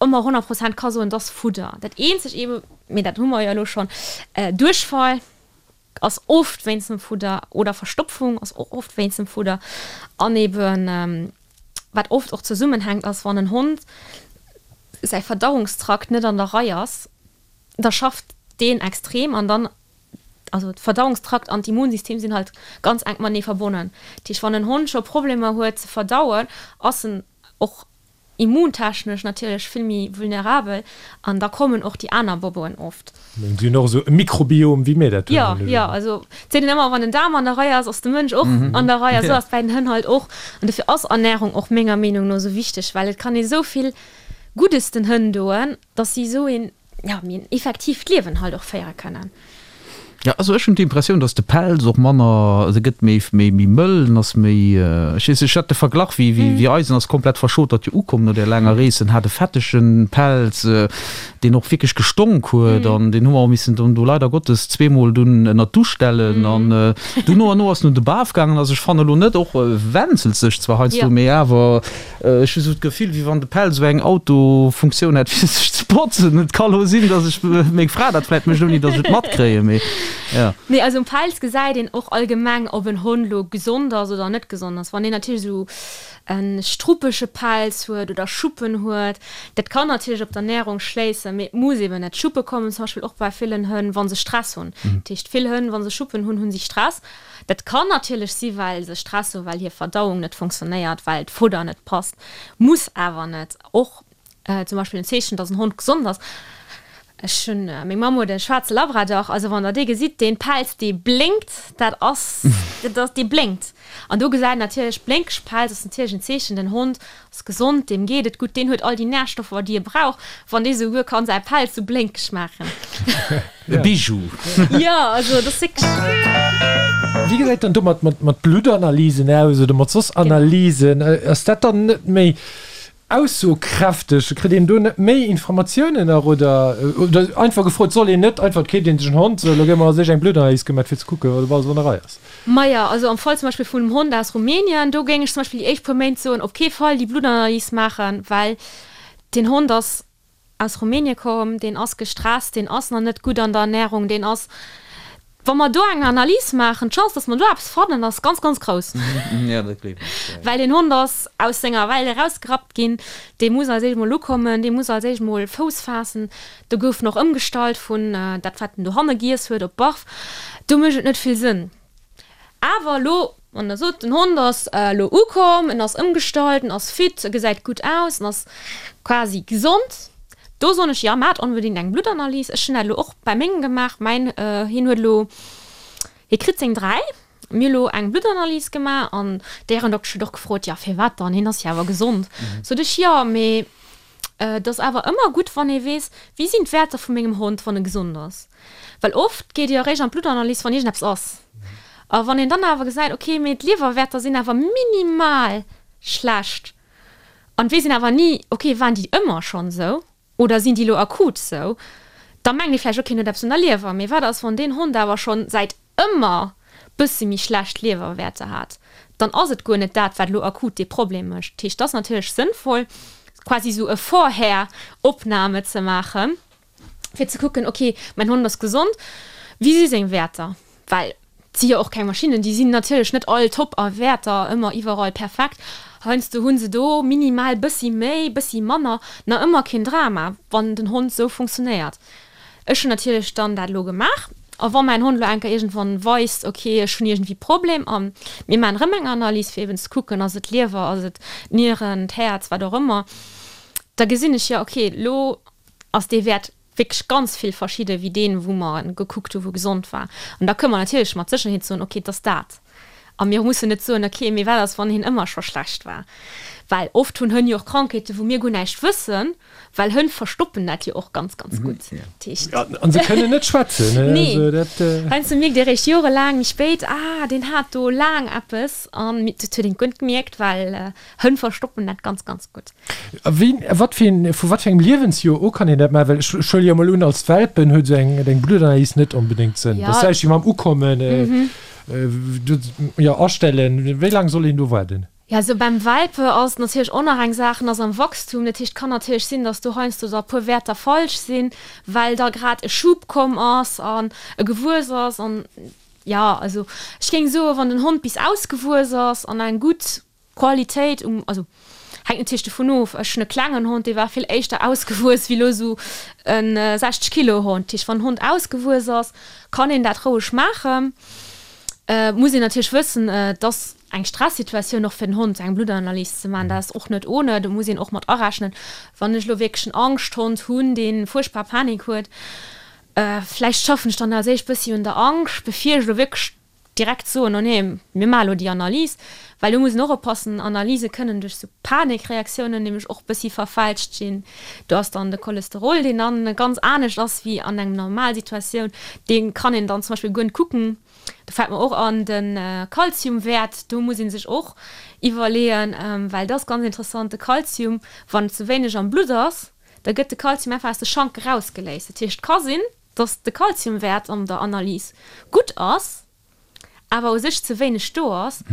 ëmmer 100 Prozent ka soen, et ass Fudder. Dat eenzeg eebe, mee dat hu mer jo elo schonn, Duerchfall ass oft wéinst dem Fudder oder Verstopfung ass och oft wéinst dem Fudder. An eeben, wat oft och zesummenhänkt, ass, wann en Hond säi Verdauungstrakt net an der Rei ass, da schafft deen extrem an dann, also d'Verdauungstrakt an d'Immunsystem sinn halt ganz enk matenee verbonnen. Dat heescht, wann en Hond scho Problemer huet ze verdauen, ass en och immuntechnesch natierlech vill méi vulnerabel an da kommen och déi aner Boboen oft. Si hunn och esou e Mikrobiom wéi mir dat hunn. Jo, jo, also et seet een ëmmer, wann den Daarm an der Rei ass, ass de Mënsch och an der Rei a sou ass et bäi den Hënn halt och. An dofir ass Ernärung och menger Meenung no sou wichteg, well et kann ee sou vill Guddes den Hënn doen, dass si esou een, ja, méi en effektiivt Liewen halt och féiere kënnen. Jo, also ech hunn d'Impressioun, dass de Pelz och manner, also e gëtt méi, méi, méi mëll, en ass méi, ech weess, ech hat de Verglach wéi, wéi, wéi eisen ass komplett verschotert jo ukomm no där laanger Rees, en hat e fettege Pelz, deen och wierklech gestonk huet an deen hu mer och missen dunn do leider Gottes zweemol dunn ënnert d'Dusch stellen an dunn no an no ass en un de Baf gaangen. Also ech fannen elo net, och wenzelt sech zwar heiansdo, mee awer Ech hu sou d'Gefill, wéi wann de Päll sou eng Autofunktioun hätt, fir sech ze botzen. Et ka lo sinn, dass ech, meng Fra dat vläit mécht, ouni dass ech et matkréien, mee jo. Nee, also um Pelz gesäit een och allgemeng, ob en Hond lo gesond ass oder net gesond ass. Wann een natierlech sou e struppege Pelz huet oder Schuppen huet, dat kann natierlech op d'Ernärung schléissen, mee et muss eben net. Schuppe kommen zum Beispill och bei villen Hënn, wa se Stress hunn. Dat heescht, vill Hënn, wa se Schuppen hunn, hu si Stress. Dat kann natierlech si well se Stress hu well hir Verdauung net funktionéiert, well d'Fudder net passt, muss awer net. Och zum Beispill en Zeechen, dass en Hond gesond ass, ech hunn, meng Mamm huet e schwaarze Labrador, also wann der dee gesitt, dee Pelz dee blénkt, dat ass, dat ass, dee blénkt. An do gesäit een natierlech, blénkeg Pelz ass natierlech en Zeechen, den Hond ass gesond, deem geet et gutt, deen huet all déi Närstoffer déi e brauch, wann dee souguer kann säi Pelz sou blénkeg maachen. E Bijou. Jo, also dat ass wierklech. Wéi gesäit dann do mat mat Bluttanalysen aus oder mat soss Analysen? Ass dat dann net méi aussokräfteg? Kritt een do net méi Informatiounen nach oder oder einfach gefrot, soll een net einfach, et keeft een sech en Hond, sou elo gi mer a sech eng Bluttanalys gemaat fir ze kucken, ob alles an der Rei ass? Maja, also am Fall zum Beispill vun engem Hond aus Rumänien, do géing ech zum Beispill déi éischt puer Méint soen, op kee Fall déi Bluttanalys maachen, well deen Hond ass aus Rumänien komm, deen ass gestresst, deen ass nach net gutt an der Ernährung, deen ass, wa mer do eng Analys maachen, d'Chance, dass mer do eppes fannen, ass ganz, ganz grouss. Well deen Hond ass aus senger Welt erausgerappt ginn, dee muss als éischt mol ukommen, dee muss als éischt mol Fouss faassen, do gouf en och ëmgestallt vun dat, wat en dohanne giess huet, op Barf. Do mécht et net vill Sënn. Awer elo, wann Der sot, den Hond ass elo ukomm, en ass ëmgestallt, en ass fit, e gesäit gutt aus, en ass quasi gesond, do soen ech, jo, maacht onbedéngt eng Bluttanalys. Ech hunn dat elo och bei mengem gemaach. Mäin, hien huet elo, hie kritt seng 3, mir hu elo eng Bluttanalys gemaach an d'Déierendoktesch huet och gefrot, jo, firwat dann, hien ass jo awer gesond. Sot ech, jo, mee Et ass awer ëmmer gutt, wann ee weess, wéi sinn d'Wäerter vu mengem Hond, wann e gesond ass. Well oft geet ee jo eréischt an d'Bluttanalys, wann iergendeppes ass. A wann een dann awer gesäit, ok, mee d'Liewerwäerter sinn awer minimal schlecht an et weess een awer ni, ok, waren déi ëmmer schonn esou oder sinn déi elo akut esou, da mengt ee vläicht, ok, en huet eppes un der Liewer. Mee wat ass, wann deen Hond awer schonn säit ëmmer bësse méi schlecht Liewerwäerter hat, dann ass et guer net dat, wat elo akut dee Problem mécht. Dat heescht, et ass natierlech sënnvoll, quasi esou e Vorher-Opname ze maachen, fir ze kucken, ok, mäin Hond ass gesond, wéi si seng Wäerter? Well et si jo och keng Maschinnen, déi sinn natierlech net all top a Wäerter ëmmer iwwerall perfekt. Heiansdo hu se do minimal bëssi méi, bëssi manner, nach ëmmer keen Drama, wann den Hond esou funktionéiert. Ech hunn natierlech dann dat elo gemaach. A wa mäin Hond elo eng Kéier iergendwann weist, ok, ech hunn iergendwéi Problem a mir maachen erëm eng Analys, fir eben ze kucken, ass et d'Liewer, ass et d'Nieren, d'Häerz, wat och ëmmer, da gesinn ech, jo, ok, elo ass dee Wäert wierklech ganz vill verschidde wéi deen, wou mer gekuckt hu wou gesond war. An da kënne mer natierlech mat Sécherheet soen, ok, et ass dat. A mir mussen net soen, ok, mee wat ass, wann hien ëmmer scho schlecht war? Well oft hunn Hënn jo och Krankheeten, wou mir guer näischt wëssen, well Hënn verstoppen dat jo och ganz, ganz gutt. Dat heescht. An se kënnen net schwätzen. Nee. Heiansdo mierkt ee réischt jorelaang méi spéit, ah, deen hat do laang eppes. An dat huet een guer net gemierkt, well Hënn verstoppen dat ganz, ganz gutt. A wéi, wat fir een, vu wat fir engem Liewensjoer u kann een dat maachen? Well ech, ech huele jo emol un, als Welpen huet esou eng, eng Bluttanalys net onbedéngt Sënn. Dat ass vläicht wéi mam Ukommen. Jo, astellen. Wéi laang soll een do waarden? Jo, also beim Welpe ass et natierlech och nach eng Saach, en ass am Wachstum, dat heescht, et kann natierlech sinn, datt do heiansdo da e puer Wäerter falsch sinn, well da grad e Schub komm ass an e gewuess ass an, jo, also ech géing soen, wann den Hond bis ausgewuess ass an eng gutt Qualitéit um, also hänkt natierlech dovun of, ech hunn e klengen Hond, dee war vill éischter ausgewuess wéi elo esou e 60 Kilo Hond. Dat heescht, wann en Hond ausgewuess ass, kann een dat roueg maachen. Et muss een natierlech wëssen, dass eng Stressituatioun och fir den Hond, eng Bluttanalys ze maachen, dat ass och net ohne. Do muss een och mat arechnen, wann ech elo wierklech en Angschthond hunn, dee fuerchtbar Panik huet, vläicht schaffen ech dann als éischt bëssi un der Angscht, bevir ech elo wierklech direkt soen, oh nee, mir maache elo déi Analys, well do muss een och oppassen, Analyse kënnen duerch sou Panikreaktiounen nämlech och bëssi verfälscht ginn. Do ass dann de Cholesterol, deen dann ganz anescht ass wéi an engem normal Situatioun, dee kann een dann zum Beispill guer net kucken. Do fält mer och an de Kalziumwäert, do muss ee sech och iwwerleeën, well dat ass ganz interessant, de Kalzium, wann ze wéineg am Blutt ass, da gëtt de Kalzium einfach aus de Schank erausgeléist. Dat heescht, et ka sinn, dass de Kalziumwäert an der Analys gutt ass, awer u sech ze wéineg do ass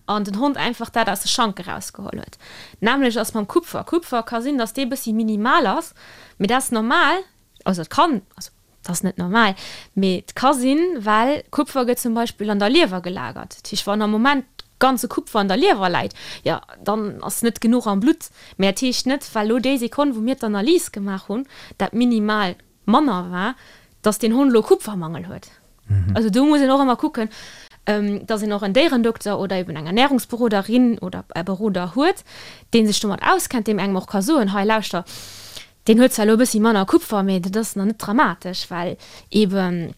an den Hond einfach dat aus de Schank erausgeholl huet. D'nämmlecht ass mam Kupfer. Kupfer ka sinn, dass dee bëssi minimal ass, mee dat ass normal, also et kann, also dat ass net normal, mee et ka sinn, well Kupfer gëtt zum Beispill an der Liewer gelagert. Dat heescht, wann am Moment ganze Kupfer an der Liewer läit, jo dann ass net genuch am Blutt. Mee dat heescht net, well elo déi Sekonn, wou mir d'Analys gemaach hunn, dat minimal manner war, dass deen Hond elo Kupfermangel huet. Also do muss een och ëmmer kucken, dass een och en Déierendokter oder eben eng Ernährungsberoderin oder e Beroder huet, dee sech domat auskennt, deem engem och ka soen, hei lauschter, deen huet zwar elo e bëssi manner Kupfer, mee dat ass nach net dramatesch, well eben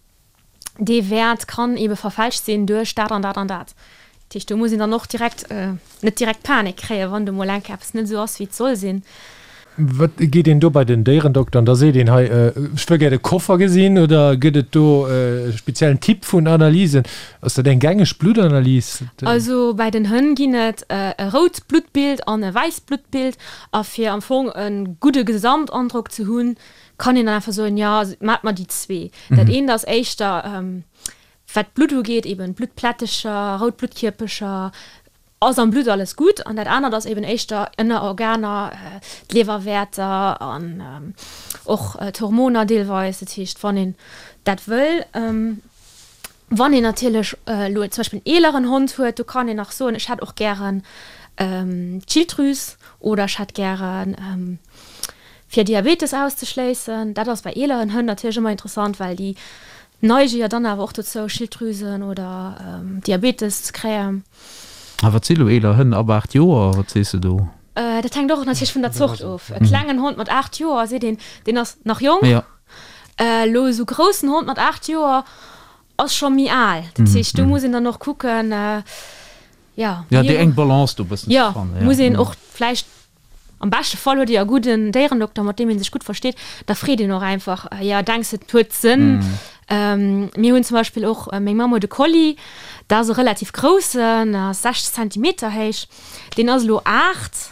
dee Wäert kann ebe verfälscht sinn duerch dat an dat an dat. Dat heescht, do muss een dann och direkt, net direkt Panik kréien, wann do mol eng Kéier eppes net esou ass, wéi et soll sinn. Wat geet een do bei den Déierendokter an da seet een, hei, ech wëll gär de Koffer gesinn? Oder gëtt et do e speziellen Typ vun Analysen? Ass dat eng gängeg Bluttanalys? Also bei den Hënn ginn et e rout Bluttbild an e wäisst Bluttbild. A fir am Fong e gudde Gesamtandrock ze hunn, kann een dann einfach soen, jo, maacht mer déi zwee. Dat eent ass éischter, wat d'Blutt ugeet, eben Bluttplättecher, rout Bluttkierpecher, ass am Blutt alles gutt. An dat anert ass eben éischter ënner Organer, d'Liewerwäerter an och d'Hormoner deelweis. Dat heescht, wann een dat wëll, wann een natierlech elo zum Beispill en eeleren Hond huet, do kann een nach soen, ech hätt och gären d'Schilddrüs oder ech hätt gären fir Diabetes auszeschléissen. Dat ass bei eeleren Hënn natierlech ëmmer interessant, well déi neige jo dann awer och dozou, Schilddrüsen oder Diabetes ze kréien. A wat si lo eeler Hënn ab 8 Joer? Wat sees de do? Dat hänkt och natierlech vun der Zort of. E klengen Hond mat 8 Joer, seet een, deen ass nach jonk. Elo esou groussen Hond mat 8 Joer ass scho méi al. Dat heescht, do muss een dann och kucken, jo. Jo, déi eng Balance do e bëssen ze fannen. Jo, muss een och vläicht Am beschte Fall huet Dir e gudden Déierendokter, mat deem ee sech gutt versteet. Da freet een och einfach, Jo, denks de, et huet Sënn? Mir hunn zum Beispill och, meng Mamm huet e Collie, dat ass e relativ groussen, ass 60 Zentimeter héich. Deen ass elo 8,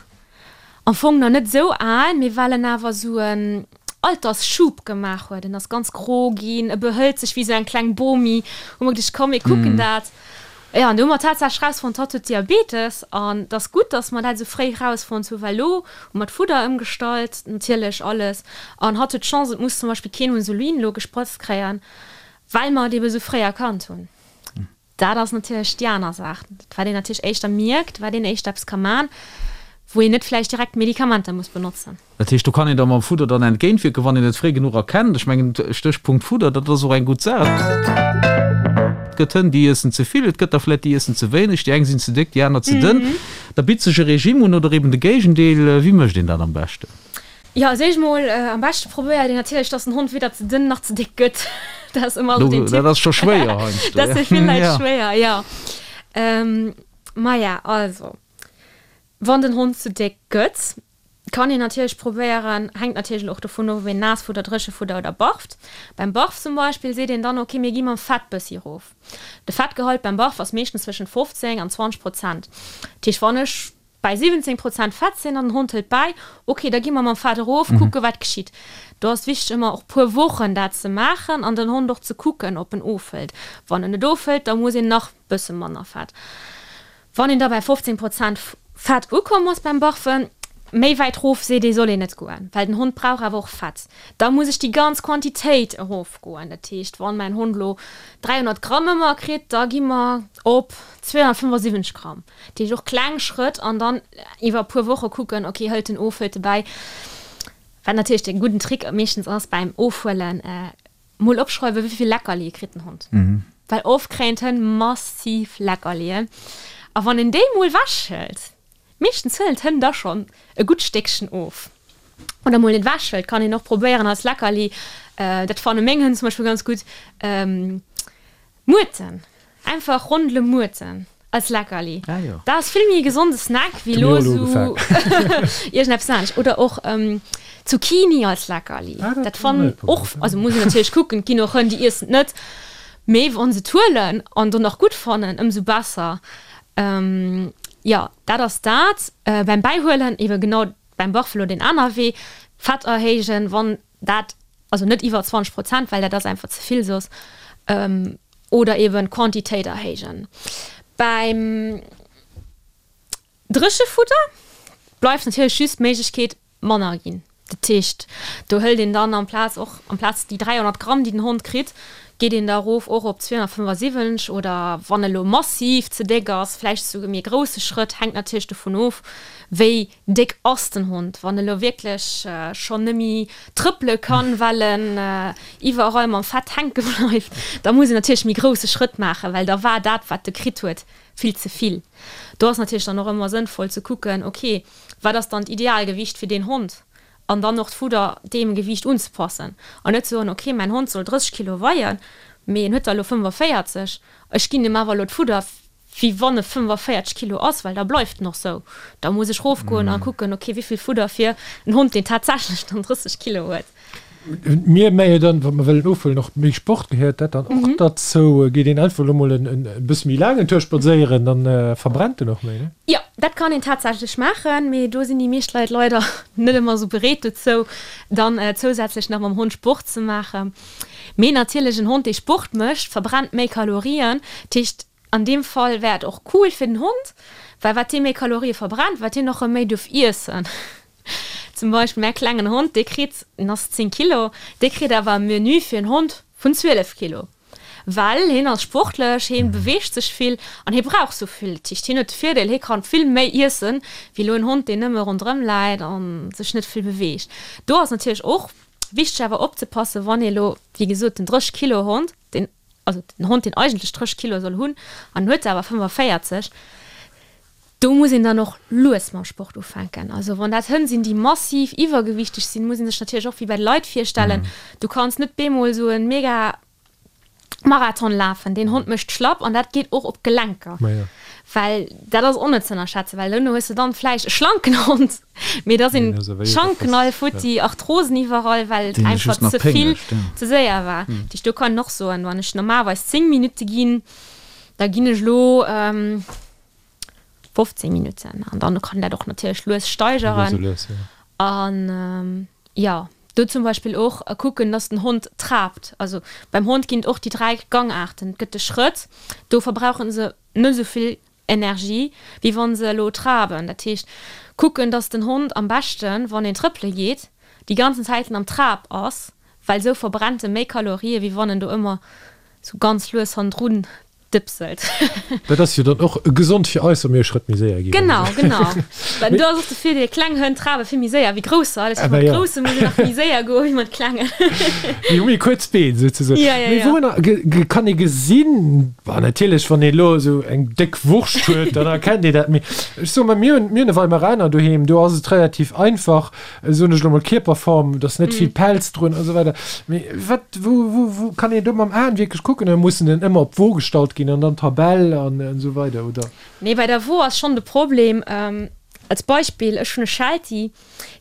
am Fong nach net esou al, mee well en awer esou en Altersschub gemaach huet, en ass ganz gro ginn, e behëlt sech wéi esou eng kleng Bomi, hu mer geduecht, komm mir kucken dat. Jo, an do hu mer tatsächlech rausfonnt, hatt huet Diabetes. An et ass gutt, dass mer dat esou fréi rausfonnt hu, well elo hu mer d'Fudder ëmgestallt, natierlech alles. An hatt huet d'Chance, et muss zum Beispill keen Insulin elo gesprëtzt kréien, well mer et ebe esou fréi erkannt hunn. Dat ass natierlech déi aner Saach, wat een natierlech éischter mierkt, wat een éischter eppes ka man, wou een net vläicht direkt Medikamenter muss benotzen. Dat heescht, do kann een da mam Fudder dann entgéintwierken, wann een et fréi genuch erkennt. Ech mengen, Stéchpunkt Fudder, dat ass och eng gutt Saach. Et gëtt Hënn, déi iessen ze vill, et gëtt der vläicht, déi iessen ze wéineg, déi eng sinn ze déck, déi aner ze dënn. Da bitt sech e Regime un oder eben de Géigendeel. Wéi mécht een dat am beschten? Jo, als éischt mol, am beschte probéiert een natierlech, dass den Hond weder ze dënn nach ze déck gëtt. Dat ass ëmmer esou den Tipp. Dat ass scho schwéier heiansdo. Dat ass fir vill Leit schwéier, jo. Maja, also, wann den Hond ze déck gëtt, Kann een natierlech probéieren, hänkt natierlech och dovun of, ob een Naassfudder, Dréchefudder oder barft. Beim Barf zum Beispill seet een dann, ok mir gi mam Fett bëssi erof. De Fettgehalt beim Barf ass meeschtens zwëschent 15 an 20 Prozent. Dat heescht wann ech. Bäi 17 Prozent Fett sinn an den Hond hëlt bäi, ok, da gi mer mam Fett erof, kucke wat geschitt. Do ass wichteg ëmmer och puer Wochen dat ze maachen an den Hond och ze kucken, ob en ofhëlt. Wann en net ofhëlt, da muss een nach bësse manner Fett. Wann een da bäi 15 Prozent Fett ukomm ass beim Barfen, méi wäit rof seet ee soll een net goen, well den Hond brauch awer och Fett. Da muss ech déi ganz Quantitéit erofgoen. Dat heescht, wann mäin Hond elo 300 Gramm ëmmer kritt, da gi mer op 275 Gramm. Dat heescht och kleng Schrëtt an dann iwwer e puer Woche kucken, ok, hëlt en of, hëlt e bäi. Wat natierlech de gudden Trick meeschtens ass beim Ofhuelen, mol opschreiwen, wéi vill Leckerlie kritt den Hond. Well oft kréien d'Hënn massiv Leckerlien a wann een déi mol wechhëlt, meeschtens huelen d'Hënn da schonn e gutt Stéckchen of. Oder mol net wechhëlt, kann een och probéieren als Leckerli, dat fanne meng Hënn zum Beispill ganz gutt, Muerten, einfach Rondele Muerten als Leckerli. Ah jo. Dat ass vill méi e gesonde Snack wéi Hu elo mir och elo esou ugefaangen. iergendeppes anescht. Oder och Zucchini als Leckerli. Ah, dat Dat hu mir fannen net och, probéiert. also muss een natierlech kucken, et ginn och Hënn, déi iessen et net, mee wa se et huelen an dann och gutt fannen, ëmsou besser. Jo, dat ass dat. Beim Bäihuelen ebe genau beim Buffalo deen aner Wee, Fett erhéijen, wann dat, also net iwwer 20 Prozent, well dat ass einfach ze vill soss, oder eben d'Quantitéit erhéijen. Beim Dréchefudder bleift natierlech just d'Méiglechkeet manner ginn. Dat heescht, do hëlt een dann amplaz och, amplaz déi 300 Gramm, déi den Hond kritt, geet een da erof och op 275 oder wann e lo massiv ze déck ass, vläicht esouguer méi e grousse Schrëtt, hänkt natierlech dovun of, wéi déck ass den Hond. Wann e lo wierklech schonn nëmmi trëppele kann, well en iwwerall mam Fett hänke bleift, da muss een natierlech méi grousse Schrëtt maachen, well da war dat, wat e kritt huet, vill ze vill. Do ass natierlech dann och ëmmer sënnvoll ze kucken, ok, wat ass dann d'Idealgewicht fir deen Hond? An dann och d'Fudder deem Gewiicht unzepassen an net soen, ok, mäin Hond soll 30 Kilo weien, mee en huet der elo 45, ech ginn em awer elo d'Fudder, wéi wann e 45 Kilo ass, well da bleift en och sou. Da muss ech rofgoen a kucken, ok, wéi vill Fudder fir en Hond, deen tatsächlech dann 30 Kilo huet. Mir méi dann, wa mer wëllen ofhuelen, och méi Sport gehéiert dat dann och derzou? Geet een einfach elo mol en bësse méi laangen Tour spadséieren, dann verbrennt en och méi, ne? Jo, dat kann een tatsächlech maachen, mee do sinn déi meescht Leit leider net ëmmer esou bereet dozou, dann zousätzlech nach mam Hond Sport ze maachen. Mee natierlech, en Hond, dee Sport mécht, verbrennt méi Kalorien. Dat heescht, an deem Fall wär et och cool fir den Hond, well wat dee méi Kalorie verbrennt, wat hien och erëm méi duerf iessen. Zum Beispill mäi klengen Hond, dee kritt, en ass 10 Kilo, dee kritt awer e Menü fir en Hond vun 12 Kilo, well hien ass sportlech, hien beweegt sech vill an hie brauch sou vill. Dat heescht, hien huet de Virdeel, hie kann vill méi iessen, wéi elo en Hond, deen nëmme ronderëm läit a sech net vill beweegt. Do ass natierlech och wichteg awer opzepassen, wann ee lo, wéi gesot, den 30 Kilo Hond, deen, also den Hond, deen eigentlech 30 Kilo soll hunn an en huet der awer 45, Do muss een dann och lues mam Sport ufänken. Also wann dat Hënn sinn, déi massiv iwwergewichteg sinn, muss ee sech natierlech och wéi bei de Leit virstellen, du kanns net bemol esou e mega Marathon lafen, deen Hond mécht schlapp an dat geet och op d'Gelenker. Well dat ass och net ze ënnerschätzen, well duerno hues de dann vläicht e schlanken Hond, mee da sinn d'Schanken all futti, Arthrosen iwwerall, well et einfach ze vill, ze séier war. Dat heescht, do kann een och soen, wann ech normalerweis 10 Minutte ginn, da ginn ech elo 15 Minutten an dann kann dat och natierlech lues steigeren. An jo, do zum Beispill och kucken, dass den Hond traapt. Also beim Hond ginn et och déi 3 Gangaarten. Et gëtt de Schrëtt, do verbrauche se net esou vill Energie, wéi wa se elo traben. Dat heescht, kucken, dass den Hond am beschten, wann een trëppele geet, déi ganzen Zäiten am Trab ass, well esou verbrennt e méi Kalorië wéi wann en do ëmmer sou ganz lues hannendrun dëpselt. Dat ass jo dann och gesond fir eis, wa mir e Schrëtt méi séier ginn. Genau, genau. Well do ass och de Virdeel, kleng Hënn trabe vill méi séier wéi grousser. Dat heescht, mat grousse muss een nach méi séier goe wéi mat klengen. Déi hu méi kuerz Been souzesoen. Ja, ja, Mee ja. wourunner kann ee gesinn, bon, natierlech, wann ee elo esou eng déck Wurscht huet, dann erkennt ee dat. Mee ech soe mol, mir hunn, mir hunn e Weimaraner doheem, do ass et relativ einfach, soen ech elo mol, Kierperform, et ass net vill Pelz drun a sou weider. Mee wat, wou, wou, wou kann een do mam Aen wierklech kucken oder muss en en ëmmer op d'Wo gestallt ginn an dann d'Tabell an esou weider, oder? Nee, bei der Wo ass schonn de Problem, als Beispill, ech hunn e Sheltie,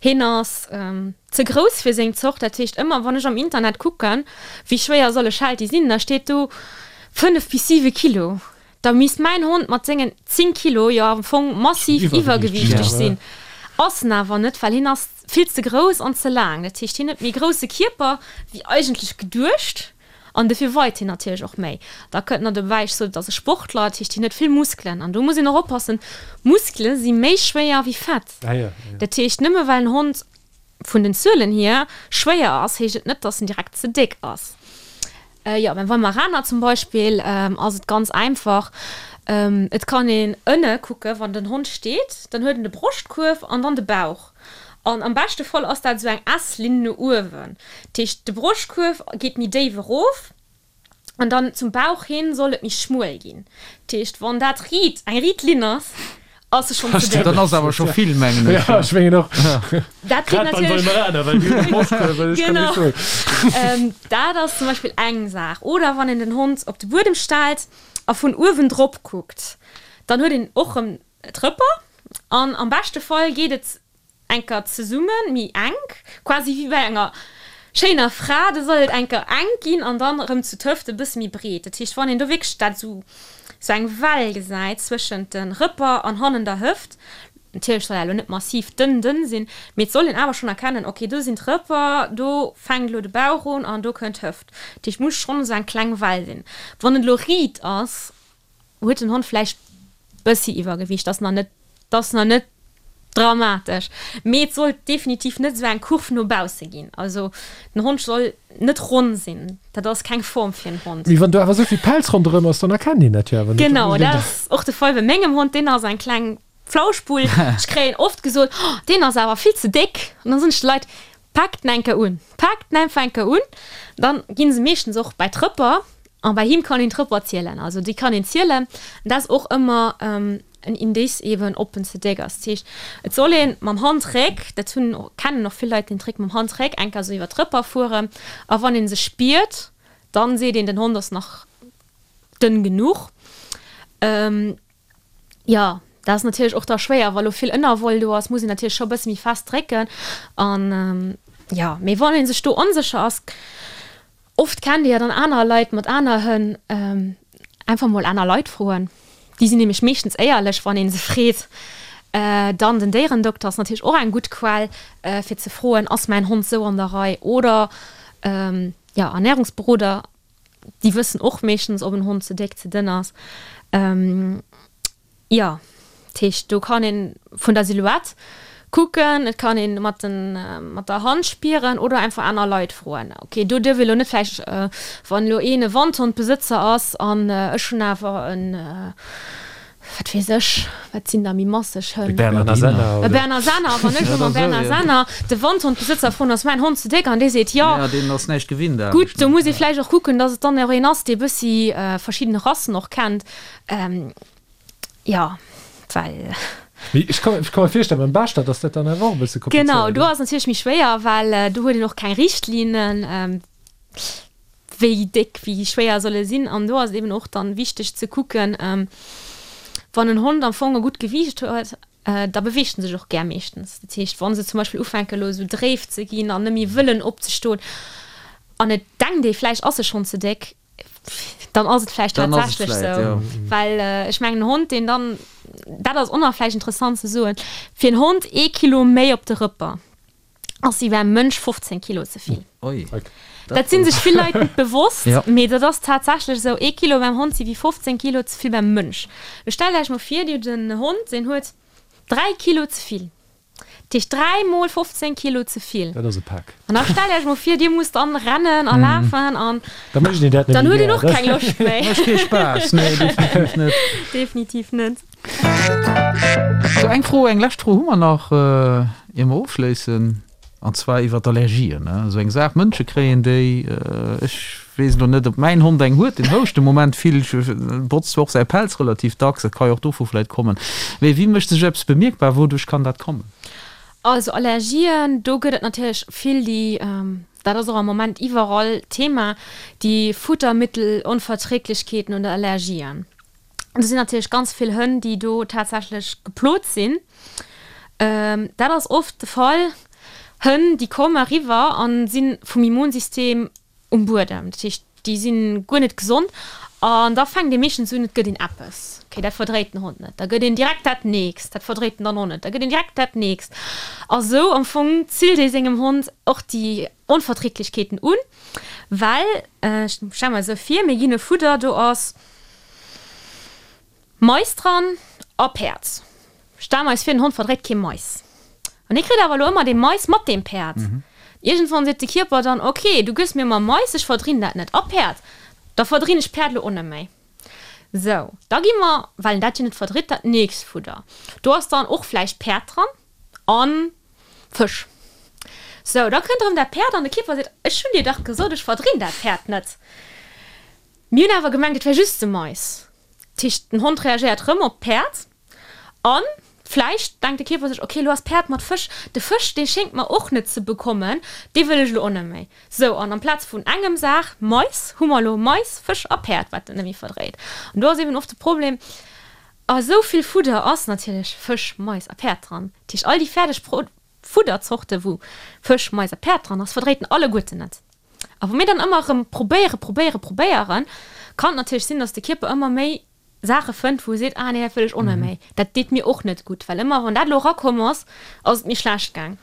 hien ass ze grouss fir seng Zort, dat heescht ëmmer wann ech am Internet kucken, wéi schwéier soll e Sheltie sinn, da steet do 5 bis 7 Kilo. Da misst mäin Hond mat sengen 10 Kilo jo am Fong massiv iwwergewiichteg sinn. Ass en awer net, well hien ass vill ze grouss an ze laang. Dat heescht, hien huet méi grousse Kierper wéi eigentlech geduecht an dofir weit hien natierlech och méi. Da kënnt nach dobäi, ech sot, et ass e Sportler, dat heescht, hien huet vill Muskelen an do muss een och oppassen, Muskele si méi schwéier wéi Fett. Dat heescht, nëmme well en Hond vun den Zuelen hier schwéier ass, heescht et net, dass en direkt ze déck ass. Jo, beim Weimaraner zum Beispill ass et ganz einfach, et kann een ënne kucke wann den Hond steet, dann huet en de Broschtkuerf an dann de Bauch. An am beschte Fall ass dat esou eng S-Linn no uewen. Dat heescht, de Broschtkuerf geet méi déif erof An dann zum Bauch hin soll et méi schmuel ginn. Dat heescht, wann dat riit, eng riit Linn ass, ass se schonn ze déck. Dann ass awer scho vill, mengen ech. Ja, ech mengen och. Dat geet Grad beim natierlech. Weimaraner, well déi hunn e Broschtkuerf, ech kann Genau. nicht soen. Dat ass zum Beispill eng Saach. Oder wann een den Hond op de Buedem stellt a vun uewen drop kuckt, dann huet een och erëm d'Rëpper an am beschte Fall geet et Enker zesummen, méi enk, quasi wéi bei enger schéiner Fra, da soll et enker enk ginn an dann erëm zu d'Hëft e bësse méi breet. Dat heescht, wann een do wierklech dat esou, esou eng Well gesäit zwëschent de Rëpper an hannen der Hëft, natierlech soll dat elo net massiv dënn dënn sinn, mee et soll een awer schonn erkennen, ok, do sinn d'Rëpper, do fänkt elo de Bauch un an do kënnt d'Hëft. Dat heescht, muss schonn esou eng kleng Well sinn. Wann et elo riit ass, Huet den Hond vläicht bëssi Iwwergewiicht, ass nach net, ass nach net dramatesch, mee et sollt definitiv net esou eng Kurv no bausse ginn. Also den Hond soll net ronn sinn, dat ass keng Form fir en Hond. Mee wann do awer esou vill Pelz ronderëm ass, dann erkennt een dat jo awer net. Genau, dat ass och de Fall bei mengem Hond, deen ass eng kleng Flauschbull. Ech kréien oft gesot, Oh, deen ass awer vill ze déck. An dann soen ech de Leit, Paakt en enker un, paakt en einfach enker un, dann ginn se meeschtens och bäi d'Rëpper an bei him kann een d'Rëpper zielen, also déi kann een zielen. An dat ass och ëmmer en Indice eben ob en ze déck ass. Dat heescht et soll een mam Handréck, dat hunn kennen och vill Leit den Trick mam Handréck enker esou iwwer d'Rëpper fueren a wann een se spiert, dann seet een den Hond ass nach dënn genuch. Jo, dat ass natierlech och da schwéier, wa lo vill Ënnerwoll do ass, muss een natierlech scho e bësse méi fest drécken. An jo, mee wann ee sech do onsécher ass, oft kennt ee jo dann aner Leit mat aner Hënn, einfach mol aner Leit froen. Déi sinn nämlech meeschtens éierlech, wann ee se freet. Dann den Déierendokter ass natierlech och eng gutt Quell, fir ze froen, Ass mäin Hond sou an der Rei? Oder jo, Ernärungsberoder. Déi wëssen och meeschtens, ob en Hond ze déck, ze dënn ass. Jo, dat heescht, do kann ee vun der Silhouette kucken, et kann ee mat den, mat der Hand spieren oder einfach aner Leit froen. Ok, do duerf ee lo net vläicht, wann elo een e Wandhondbesëtzer ass an ech hunn awer en, Wat weess ech, wat sinn da méi masseg Hënn? E Bernardiner. Senner, E Berner Senner. Wann ech elo mam Berner Senner de Wandhondbesëtzer froen, ass mäin Hond ze déck? An dee seet jo. Ja, deen ass näischt gewinnt anescht. Gutt, do muss ee vläicht och kucken, datt et dann och een ass, dee bëssi verschidden Rassen och kennt. Jo, well. Mee ech ka ech ka mer virstellen, beim Beschter, datt dat dann awer och e bësse komplizéiert Genau, do ass natierlech méi schwéier, well do huet een och keng Richtlinnen. Wéi déck, wéi schwéier soll e sinn? An do ass et eben och dann wichteg ze kucken, wann en Hond am Fong e gutt Gewiicht huet, da beweegt en sech och gär meeschtens. Dat heescht, wa se zum Beispill ufänken elo esou dréif ze ginn an net méi wëllen opzestoen an et denkt ee vläicht ass e schonn ze déck, dann ass et vläicht tatsächlech esou. Well ech mengen en Hond deen dann, dat ass och nach vläicht interessant ze soen, fir en Hond ee Kilo méi op de Rëpper, ass wéi beim Mënsch 15 Kilo ze vill. Oi. Dat sinn sech vill Leit net bewosst, Ja. mee dat ass tatsächlech esou, ee Kilo beim Hond si wéi 15 Kilo ze vill beim Mënsch. Lo stellt Iech mol vir, Dir hutt en Hond, deen huet 3 Kilo ze vill. Dat heescht 3 mol 15 Kilo ze vill. Dat ass e Pak. An da stellt Iech mol vir, Dir musst dann rennen a lafen an Da mécht een dat net dann méi huet een gär. och keng Loscht méi. Mécht kee Spaass, nee, definitiv net. Definitiv net. Sou, eng Fro, eng lescht Fro hu mer nach, ier mer ofschléissen, an zwar iwwer d'Allergien. Esou eng Saach, Mënsche kréien déi. Ech weess elo net, ob mäin Hond eng huet, deen houscht de Moment vill, botzt zwar och säi Pelz relativ dacks, dat ka jo och dovu vläicht kommen. Mee wéi mécht sech eppes bemierkbar, wouduerch kann dat kommen? Also Allergien, do gëtt et natierlech vill, déi, dat ass och am Moment iwwerall Thema, déi Futtermittelonverträglichkeeten oder Allergien. Do sinn natierlech ganz vill Hënn, déi do tatsächlech geplot sinn. Dat ass oft de Fall, Hënn, déi komme eriwwer a si vum Immunsystem um Buedem. Dat heescht, déi si guer net gesond. An da fänkt ee meeschtens un, et gëtt een eppes, okay, dat verdréit den Hond net. Da gëtt een direkt dat nächst, dat verdréit en dann och net. Da gëtt een direkt dat nächst. A sou am Fong zillt ee sengem Hond och déi Onverträglichkeeten un, well, ech stelle mer esou vir, mir ginn e Fudder, do ass Mais dran a Päerd. Stelle mer eis vir, den Hond verdréit kee Mais. An hie kritt awer elo ëmmer dee Mais mat deem Päerd. Iergendwann seet de Kierper dann, Ok, du gëss mir ëmmer Mais, ech verdrinn dat net. A Päerd, da verdrinn ech Päerd elo och net méi. Sou, da gi mer, well en dat jo net verdritt, dat nächst Fudder. Do ass dann och vläicht Päerd dran a Fësch. Sou, da kënnt erëm dat Päerd an de Kierper seet, Ech hunn dir dach gesot, ech verdrinn dat Päerd net. Mir hunn awer gemengt, et wär just de Mais. Dat heescht, den Hond reagéiert rëm op d'Päerd a vläicht denkt de Kierper sech, ok, elo ass Päerd mat Fësch, de Fësch, dee schéngt mer och net ze bekommen, dee wëll ech elo och net méi. Sou, an amplaz vun engem Saach Mais, hu mer elo Mais, Fësch a Päerd, wat en net méi verdréit. An do ass eben oft de Problem, a sou vill Fudder ass natierlech Fësch, Mais a Päerd dran. Dat heescht, all déi fäerdeg Fudderzorte wou Fësch, Mais a Päerd dran ass, verdréit en alleguerten net. A wa mir dann ëmmer erëm probéieren, probéieren, probéieren, kann et natierlech sinn, dass de Kierper ëmmer méi Saache fënnt, wou e seet, ah nee, dat wëll ech och net méi, dat deet mir och net gutt, well ëmmer wann dat elo erakomm ass, ass et mir schlecht gaang.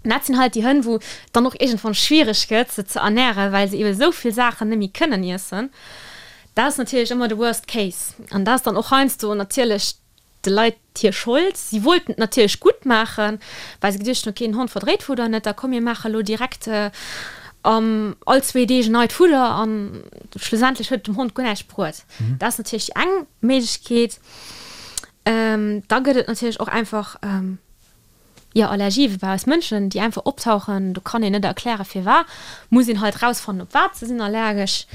An dat sinn halt déi Hënn, wou et dann och iergendwann schwiereg gëtt, se ze ernären, well se ebe sou vill Saachen net méi kënnen iessen. Dat ass natierlech ëmmer de Worst Case. An dat ass dann och heiansdo natierlech de Leit hir Schold. Si wollten et natierlech gutt maachen, well se geduecht hunn, ok, den Hond verdréit Fudder net, da komm mir maache lo direkt all zwéi Deeg en neit Fudder an schlussendlech huet et dem Hond guer näischt bruet. Dat ass natierlech déi eng Méiglechkeet. Da gëtt et natierlech och einfach, jo, Allergië wéi bei eis Mënschen, déi einfach optauchen. Do kann een net erkläre firwat, muss een halt rausfannen, op wat se sinn allergesch.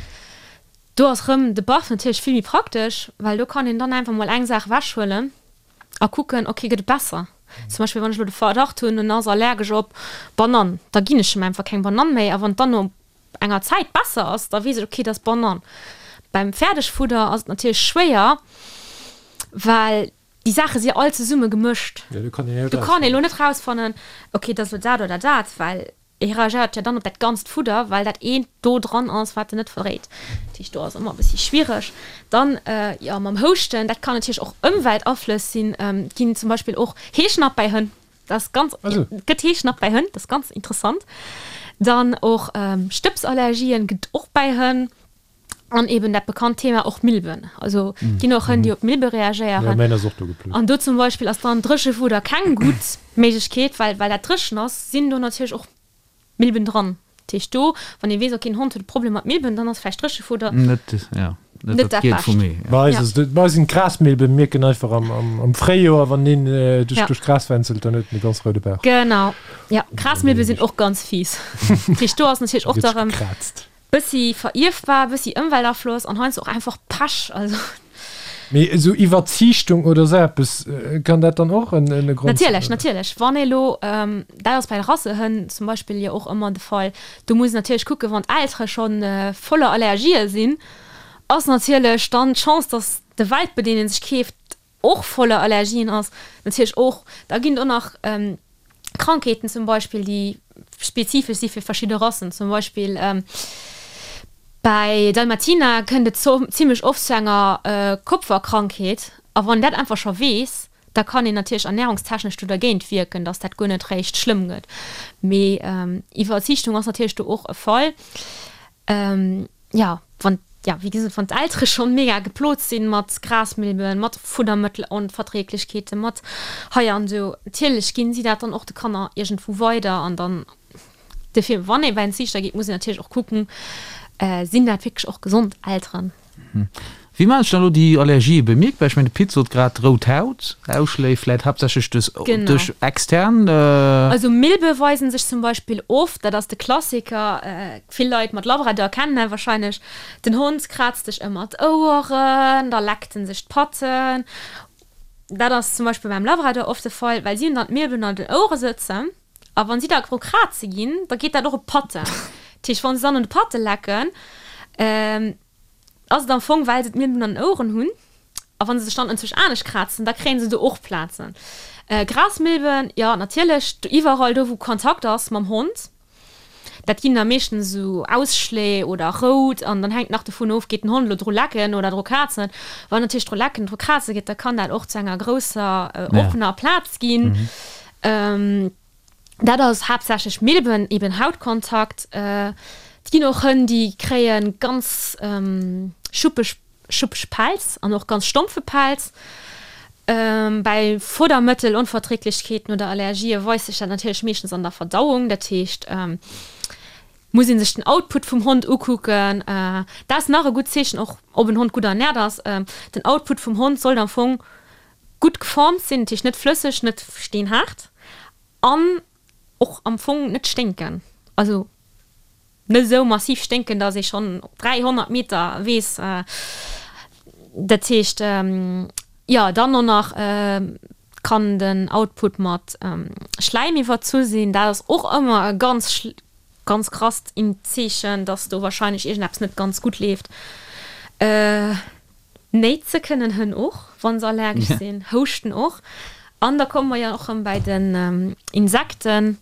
Do ass rëm de Barf natierlech vill méi praktesch, well do kann een dann einfach mol eng Saach ewechhuelen a kucken, ok, gëtt et besser? Zum Beispill wann ech elo de Verdacht hunn, en ass allergesch op Banann, da ginn ech em einfach keng Banann méi a wann et dann no enger Zäit besser ass, da weess ech, ok, et ass Banann. Beim Fäerdegfudder ass et natierlech schwéier, well déi Saache si all zesumme gemëscht. Do kann ee lo net rausfannen, ok, et ass elo dat oder dat, well E reagéiert jo dann op dat ganzt Fudder, well dat eent do dran ass, wat en net verdréit. Dat heescht, do ass ëmmer e bëssi schwiereg. Dann, jo, mam Houschten, dat kann natierlech och Ëmweltaflëss sinn. Et ginn zum Beispill och Heeschnapp bäi Hënn. Dat ass ganz, et gëtt Heeschnapp bäi Hënn, dat ass ganz interessant. Dann och Stëbsallergien gëtt et och bäi Hënn. An eben dat bekannt Thema och Milben. Also et ginn och Hënn, déi op Milbe reagéieren. Ja, mäin ass och do geplot. An do zum Beispill ass dann Dréchewudder keng gutt Méiglechkeet, well well dat dréchen ass, sinn do natierlech och Milben dran. Dat heescht do, wann ee weess, okay, den Hond huet e Problem mat Milben, dann ass vläicht Dréchewudder Net, ja, net net dat dat Gielt vum Bescht. Ee, ja. Bei eis Ja. ass et, bei eis sinn d'Grasmilben, mierken einfach am, am, am Fréijoer, wann een duerch, Ja. duerch d'Gras wänzelt, dann huet en e ganz roude Bauch. Genau, ja. Grasmilbe sinn och ganz fies. Dat heescht do ass natierlech Da och gëtt da sech rëm. gekraazt. Bëssi verierfbar, bëssi Ëmweltafloss an heiansdo och einfach Pech, also. Mee esou Iwwerziichtung oder esou eppes, kann dat dann och en e Grond sinn, Natierlech, oder? natierlech. Wann ee lo, dat ass bei de Rassehënn zum Beispill jo och ëmmer de Fall, do muss een natierlech kucken, wann d'Eltere scho voller Allergië sinn, ass natierlech dann d'Chance, datt de Welpe, deen ee sech keeft, och voller Allergien ass, natierlech och. Da ginn et och nach Krankheeten zum Beispill, déi spezifesch si fir verschidde Rassen. Zum Beispill bäi Dalmatiner kënnt et zimmlech oft zu enger Kopferkrankheet. A wann een dat einfach scho weess, da kann een natierlech ernärungstechnesch do dergéint wierken, datt dat guer net réischt schlëmm gëtt. Mee Iwwerziichtung ass natierlech do och e Fall. Jo, wann, ja, wéi gesot, wann d'Eltere schonn mega geplot sinn mat Grasmilben, mat Fuddermëttelonverträglichkeeten, mat hei an do, natierlech ginn si dat dann och de Kanner iergendwou weider. An dann, dofir, wann ee bei en Ziichter geet, muss een natierlech och kucken, sinn dat wierklech och gesond Elteren? Wéi maachen sech dann elo déi Allergië bemierkbar? Ech mengen, de Pit sot grad rout Haut, Ausschléi vläit haaptsächlech duerch extern. Also Milbe weisen sech zum Beispill oft, dat ass de Klassiker, vill Leit mat Labrador kennen dat wahrscheinlech, den Hond kraazt sech ëmmer d'Oueren, da leckt en sech d'Patten. Dat ass zum Beispill beim Labrador oft de Fall, well si hunn dann d'Milben an den Ouere sëtzen a wann si da dru kraze ginn, da geet dat och op d'Patten. Dat heescht, wann se dann un de Patte lecken, Ass et am Fong, well se d'Milben an den Oueren hunn, a wa se sech dann enzwousch anescht krazen, da kréien se do och Plazen. Grasmilben, jo natierlech, iwwerall do wou Kontakt ass mam Hond. Dat ginn da meeschtens esou Ausschléi oder rout an dann hänkt nach dovun of, geet den Hond elo dru lecken oder dru krazen. Wann natierlech dru lecken, dru kraze geet, da kann dat och zu enger grousser oppener Plaz ginn. Dat ass haaptsächlech Milben, eben Hautkontakt. Et ginn och Hënn, déi kréie ganz schuppeg, schuppeg Pelz an och ganz stompfe Pelz. Bäi Fuddermëttelonverträglichkeeten oder Allergië weist sech dat natierlech meeschtens an der Verdauung. Dat heescht, muss ee sech den Output vum Hond ukucken. Dat ass nach e gutt Zeechen och, ob en Hond gutt ernäert ass. Den Output vum Hond sollt am Fong gutt geformt sinn, dat heescht net flësseg, net steenhaart an och am Fong net sténken, also net esou massiv sténken, dass ee schonn op 300 Meter weess. Dat heescht, jo, dann och nach kann den Output mat Schläim iwwerzu sinn, dat ass och ëmmer e ganz ganz krasst Zeechen, dass do wahrscheinlech iergendeppes net ganz gutt leeft. Néitse kënnen Hënn och, wa se allergesch sinn, houschten och. An da komme mer jo och erëm bäi den Insekten.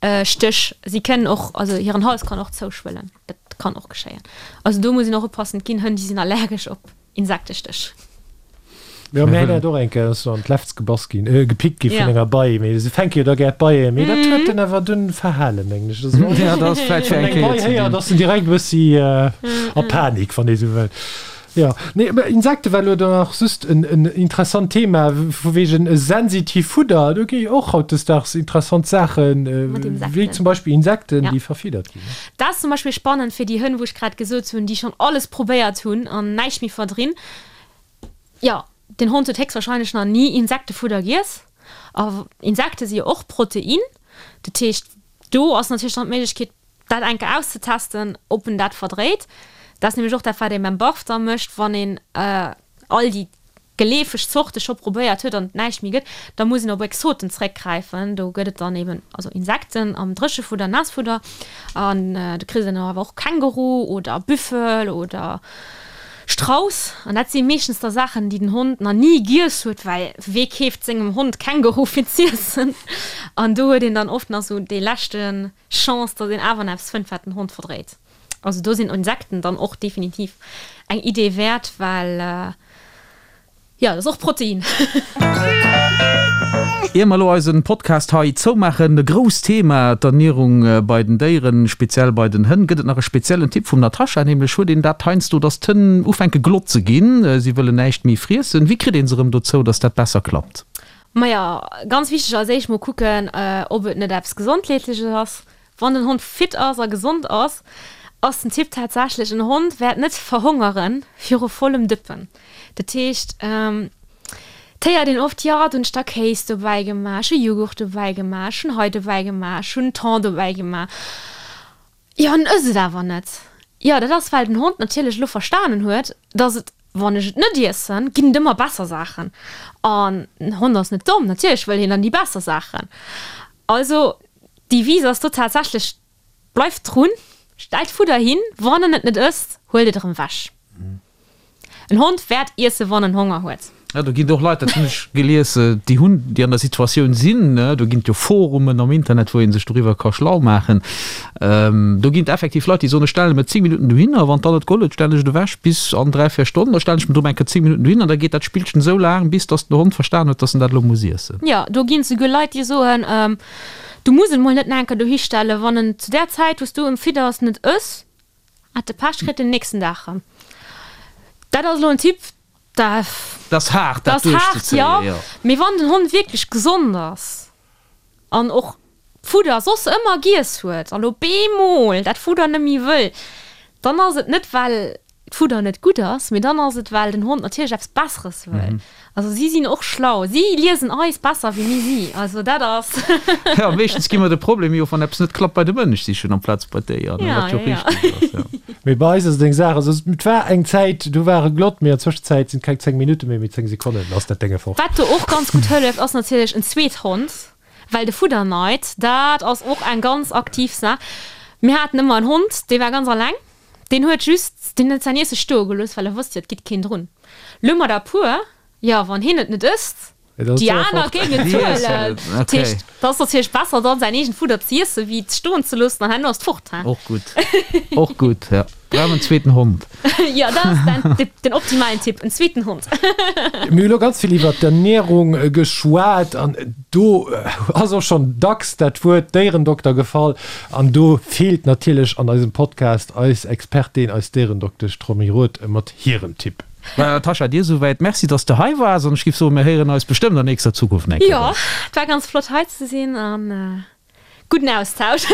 Stéch, si kënnen och, also hiren Hals kann och zouschwëllen, dat kann och geschéien. Also do muss een och oppassen, et ginn Hënn, déi sinn allergesch op Insektestéch. Jo, mäin hat och eng Kéier, ass an d'Lefz gebass ginn, gepickt gi vun enger Bei, mee se fänke jo da gär d'Beien, mee dat huet en awer dunn verhalen, mengen ech. Ja, dat ass vläicht fir eng Kéier ze dinn. Wann eng Bei héiert, ass en direkt e bëssi a Panik, wann ee sou wëll. Jo, nee, mä Insekte war elo dann nach just en interessant Thema, vu wegen sensitiv Fudder, do gi jo och hautdesdaags interessant Saachen, wéi zum Beispill Insekten, déi verfiddert ginn. Dat ass zum Beispill spannend fir déi Hënn, wou ech grad gesot hunn, déi schonn alles probéiert hunn an näischt méi verdrinn. Jo, den Hond huet héchstwahrscheinlech nach ni Insektefudder giess. A Insekte si jo och Protein. Dat heescht, do ass natierlech dann d'Méiglechkeet, dat eng Kéier auszetesten, ob en dat verdréit. Dat ass nämlech och dat, wat ee beim Barf da mécht, wann een all déi geleefeg Zorte scho probéiert huet an et näischt méi gëtt, da muss een op Exoten zréckgräifen. Do gëtt et dann eben also Insekten am Dréchefudder, Naassfudder an du kriss dann awer och Känguru oder Büffel oder Strauss. An dat si meeschtens da Saachen, déi den Hond nach ni giess huet, well wee keeft sengem Hond Känguru fir z'iessen? An do huet een dann oft nach sou dee leschte Chance, datt een awer nach eppes fënnt, wat den Hond verdréit. Also do sinn Insekten dann och definitiv eng Idee wäert, well jo, dat ass och Protein. Ier mer elo eisen Podcast hei zoumaachen, e grousst Thema, d'Ernierung bei den Déieren, speziell bei den Hënn. Gëtt et nach e speziellen Tipp vum Natascha? Nämlech huet een dat heiansdo, dass d'Hënn ufänke glott ze ginn, si wëllen näischt méi friessen. Wéi kritt een se erëm dozou, dass dat besser klappt? Maja, ganz wichteg als éischt mol kucken, ob et net eppes Gesondheetleches ass. Wann den Hond fit ass a gesond ass, ass den Tipp tatsächlech, en Hond wäert net verhongere viru vollem Dëppen. Dat heescht, et héiert een oft, jo, do hunn ech da Kéis dobäi gemaach, ech hu Jughurt dobäi gemaach, ech hunn hei dobäi gemaach, ech hunn Thon dobäi gemaach. Jo, en ësst et awer net. Jo, dat ass, well den Hond natierlech elo verstanen huet, dass et, wann ech et net iessen, ginn et ëmmer besser Saachen. An den Hond ass net domm, natierlech wëll hien dann déi besser Saachen. Also, D'Devise ass do tatsächlech, Bleift drun, stellt Fudder hin, wann en et net ësst, huelt et erëm wech. En Hond wäert iessen, wann en Honger huet. Jo, do ginn et och Leit, dat hunn ech gelies, déi hunn, déi an der Situatioun sinn, do ginn et jo Forumen am Internet, wou ee sech doriwwer ka schlau maachen. Do ginn et effektiv Leit, déi soen, ech stelle mer 10 Minutten dohinner, wann dann net geholl huet, stellen ech et ewech bis an 3, 4 Stonnen, da stellen ech mer erëm eng Kéier 10 Minutten dohinner an da geet dat Spillchen esou laang, bis datt den Hond verstan huet, datt en dat elo muss iessen. Jo, do ginn et souguer Leit, déi soen, Du muss en mol net nach enker dohi stellen, wann en zu där Zäit wou s du em fidders net ëss, hat de Pech, kritt en nächsten Dag rëm. Dat ass elo en Tipp, dat ass haart dat duerchzezéien, jo, mee wann den Hond wierklech gesond ass an och d'Fudder soss ëmmer giess huet an op eemol dat Fudder net méi wëll, dann ass et net well d'Fudder net gutt ass, mee dann ass et well den Hond natierlech eppes Besseres wëll. Also si sinn och schlau, si liesen eis besser wéi mir si, also dat ass. Jo, meeschtens gi mer de Problem jo, wann eppes net klappt, bei de Mënsch sichen amplaz bei d'Déier, ne, wat jo och richteg ass, jo. Mee bei eis ass et eng Saach, also et war eng Zäit, do war e glott, mee an Zwëschenzäit sinn et keng 10 Minutte méi, mee 10 Sekonnen, dann ass dat Dénge fort. Wat do och ganz gutt hëlleft, ass natierlech en zweet Hond, well de Fudderneid, dat ass och eng ganz aktiv Saach. Mir haten ëmmer en Hond, dee war ganz alleng. Deen huet just, deen huet säin Iesse stoe gelooss, well e wosst jo, et gitt keen drun. Lo mat a puer, jo, wann hien et net ësst. Déi aner géingen zuelen. Dat heescht, dat ass natierlech besser dann säin eegent Fudder ze iessen, wéi et stoen ze loossen an herno ass et fort. Och gutt, och gutt, ja. Brauch en zweeten Hond. Jo, dat ass den, den optimalen Tipp, en zweeten Hond. Mir hu lo ganz vill iwwer d'Ernärung geschwat an do ass och schonn dacks dat Wuert Déierendokter gefall an do feelt natierlech an eisem Podcast eis Expertin, eis Déierendoktesch Romy Roth mat hirem Tipp. Maja Natascha, dir esouwäit Merci, dass de hei waars an ech giff soen, mir héieren eis bestëmmt an nächster Zukunft nach eng Kéier. Jo, et war ganz flott hei ze sinn an gudden Austausch.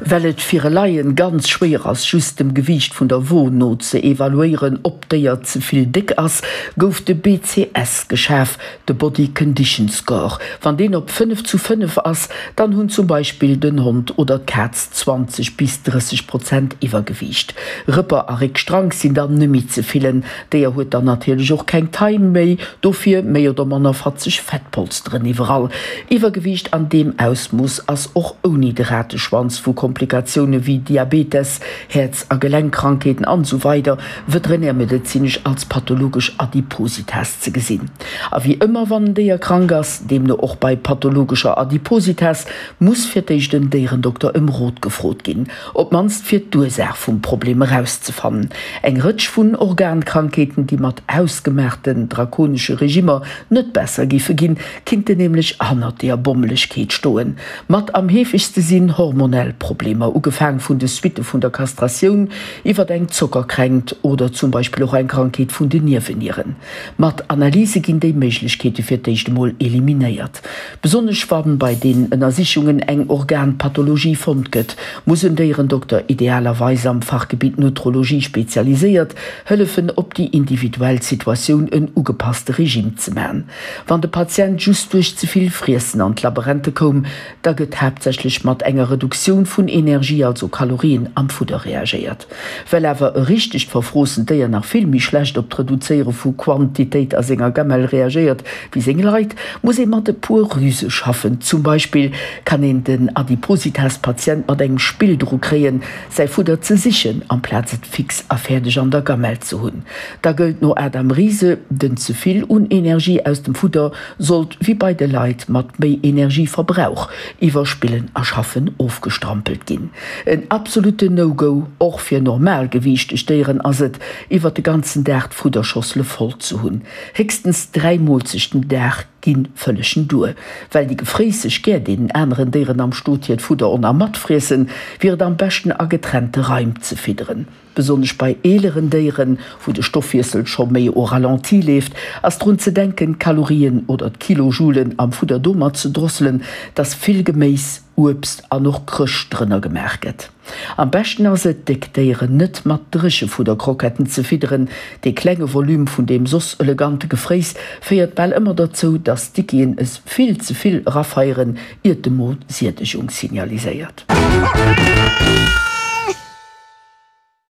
Well et fir e Laien ganz schwéier ass, just dem Gewiicht vun der Wo no ze evaluéieren, ob d'Déier ze vill déck ass, gouf de BCS geschaf, de Body Condition Score. Wann deen op 5 zu 5 ass, dann hunn zum Beispill den Hond oder d'Kaz 20 bis 30 Prozent Iwwergewiicht. Rëpper a Réckstrank sinn dann nemmi ze fillen. D'Déier huet dann natierlech och keng Taille méi, dofir méi oder manner fatzeg Fettpolsteren iwwerall. Iwwergewiicht an deem Ausmooss ass och ouni de Rateschwanz vu Komplikatioune wéi Diabetes, Häerz a Gelenkkrankheeten an esou weider veterinärmedezinesch als pathologesch Adipositas ze gesinn. A wéi ëmmer wann en Déier krank ass, deemno och bei pathologescher Adipositas, muss fir d'éischt en Déierendokter ëm Rot gefrot ginn, op d'mannst fir d'Ursaach vum Problem erauszefannen. Eng Rëtsch vun Organkrankheeten, déi mat hausgemaachten drakonesche Regimmer net besser géife ginn, kinnten nämlech hannert deeër Bommelegkeet stoen. Mat am heefegste sinn hormonell Problemer, ugefaang vun de Suitte vun der Kastratioun iwwert eng Zockerkränkt oder zum Beispill och eng Krankheet vun den Niewenieren. Mat Analyse ginn déi Méiglechkeete fir d'éischt emol eliminéiert. Besonnesch wann bei deenen Ënnersichungen eng Organpathologie fonnt gëtt, muss en Déierendokter, idealerweis am Fachgebitt Nutrologie spezialiséiert, hëllefen op déi individuell Situatioun en ugepasste Regime ze man. Wann de Patient just duerch ze vill Friessen an d'Laberente koum, da gëtt haaptsächlech mat enger Reduktioun vun Energie, also Kalorien, am Fudder reagéiert. Well awer e richtegt verfroossent Déier nach vill méi schlecht op d'Reduzéiere vu Quantitéit a senger Gamelle reagéiert wéi seng Leit, muss ee mat e puer Rüse schaffen. Zum Beispill kann een den Adipositas-Patient mat engem Spill dru kréien, säi Fudder ze sichen, amplaz et fix a fäerdeg an der Gamelle ze hunn. Da gëllt no Adam Riese, den ze vill un Energie aus dem Fudder sollt wéi bei de Leit mat méi Energieverbrauch iwwer Spillen a Schaffen ofgestrampelt ginn. En absolutten No-Go, och fir normalgewiichteg Déieren, ass et, iwwer de ganzen Dag d'Fudderschossele voll ze hunn. Héchstens 3 Moolzechten den Dag gi vëllegen duer. Well déi Gefréisseg gär deenen aneren Déieren am Stot hiert Fudder on a matfriessen, wier et am beschten a getrennte Raim ze fidderen. Besonnesch bei eeleren Déieren, wou de Stoffwiessel scho méi au ralenti leeft, ass drun ze denken, d'Kalorien oder d'Kilojoulen am Fudder domat ze drosselen, dass vill Geméis, Uebst an och Krëscht drënner gemaach gëtt. Am beschten ass et, déck Déieren net mat Dréchefudderkroketten ze fidderen. Dee klenge Volume vun deem soss elegante Gefréiss féiert bal ëmmer derzou, dass d'Dickien es vill ze vill erafeieren, iert de Mo Siedegung signaliséiert.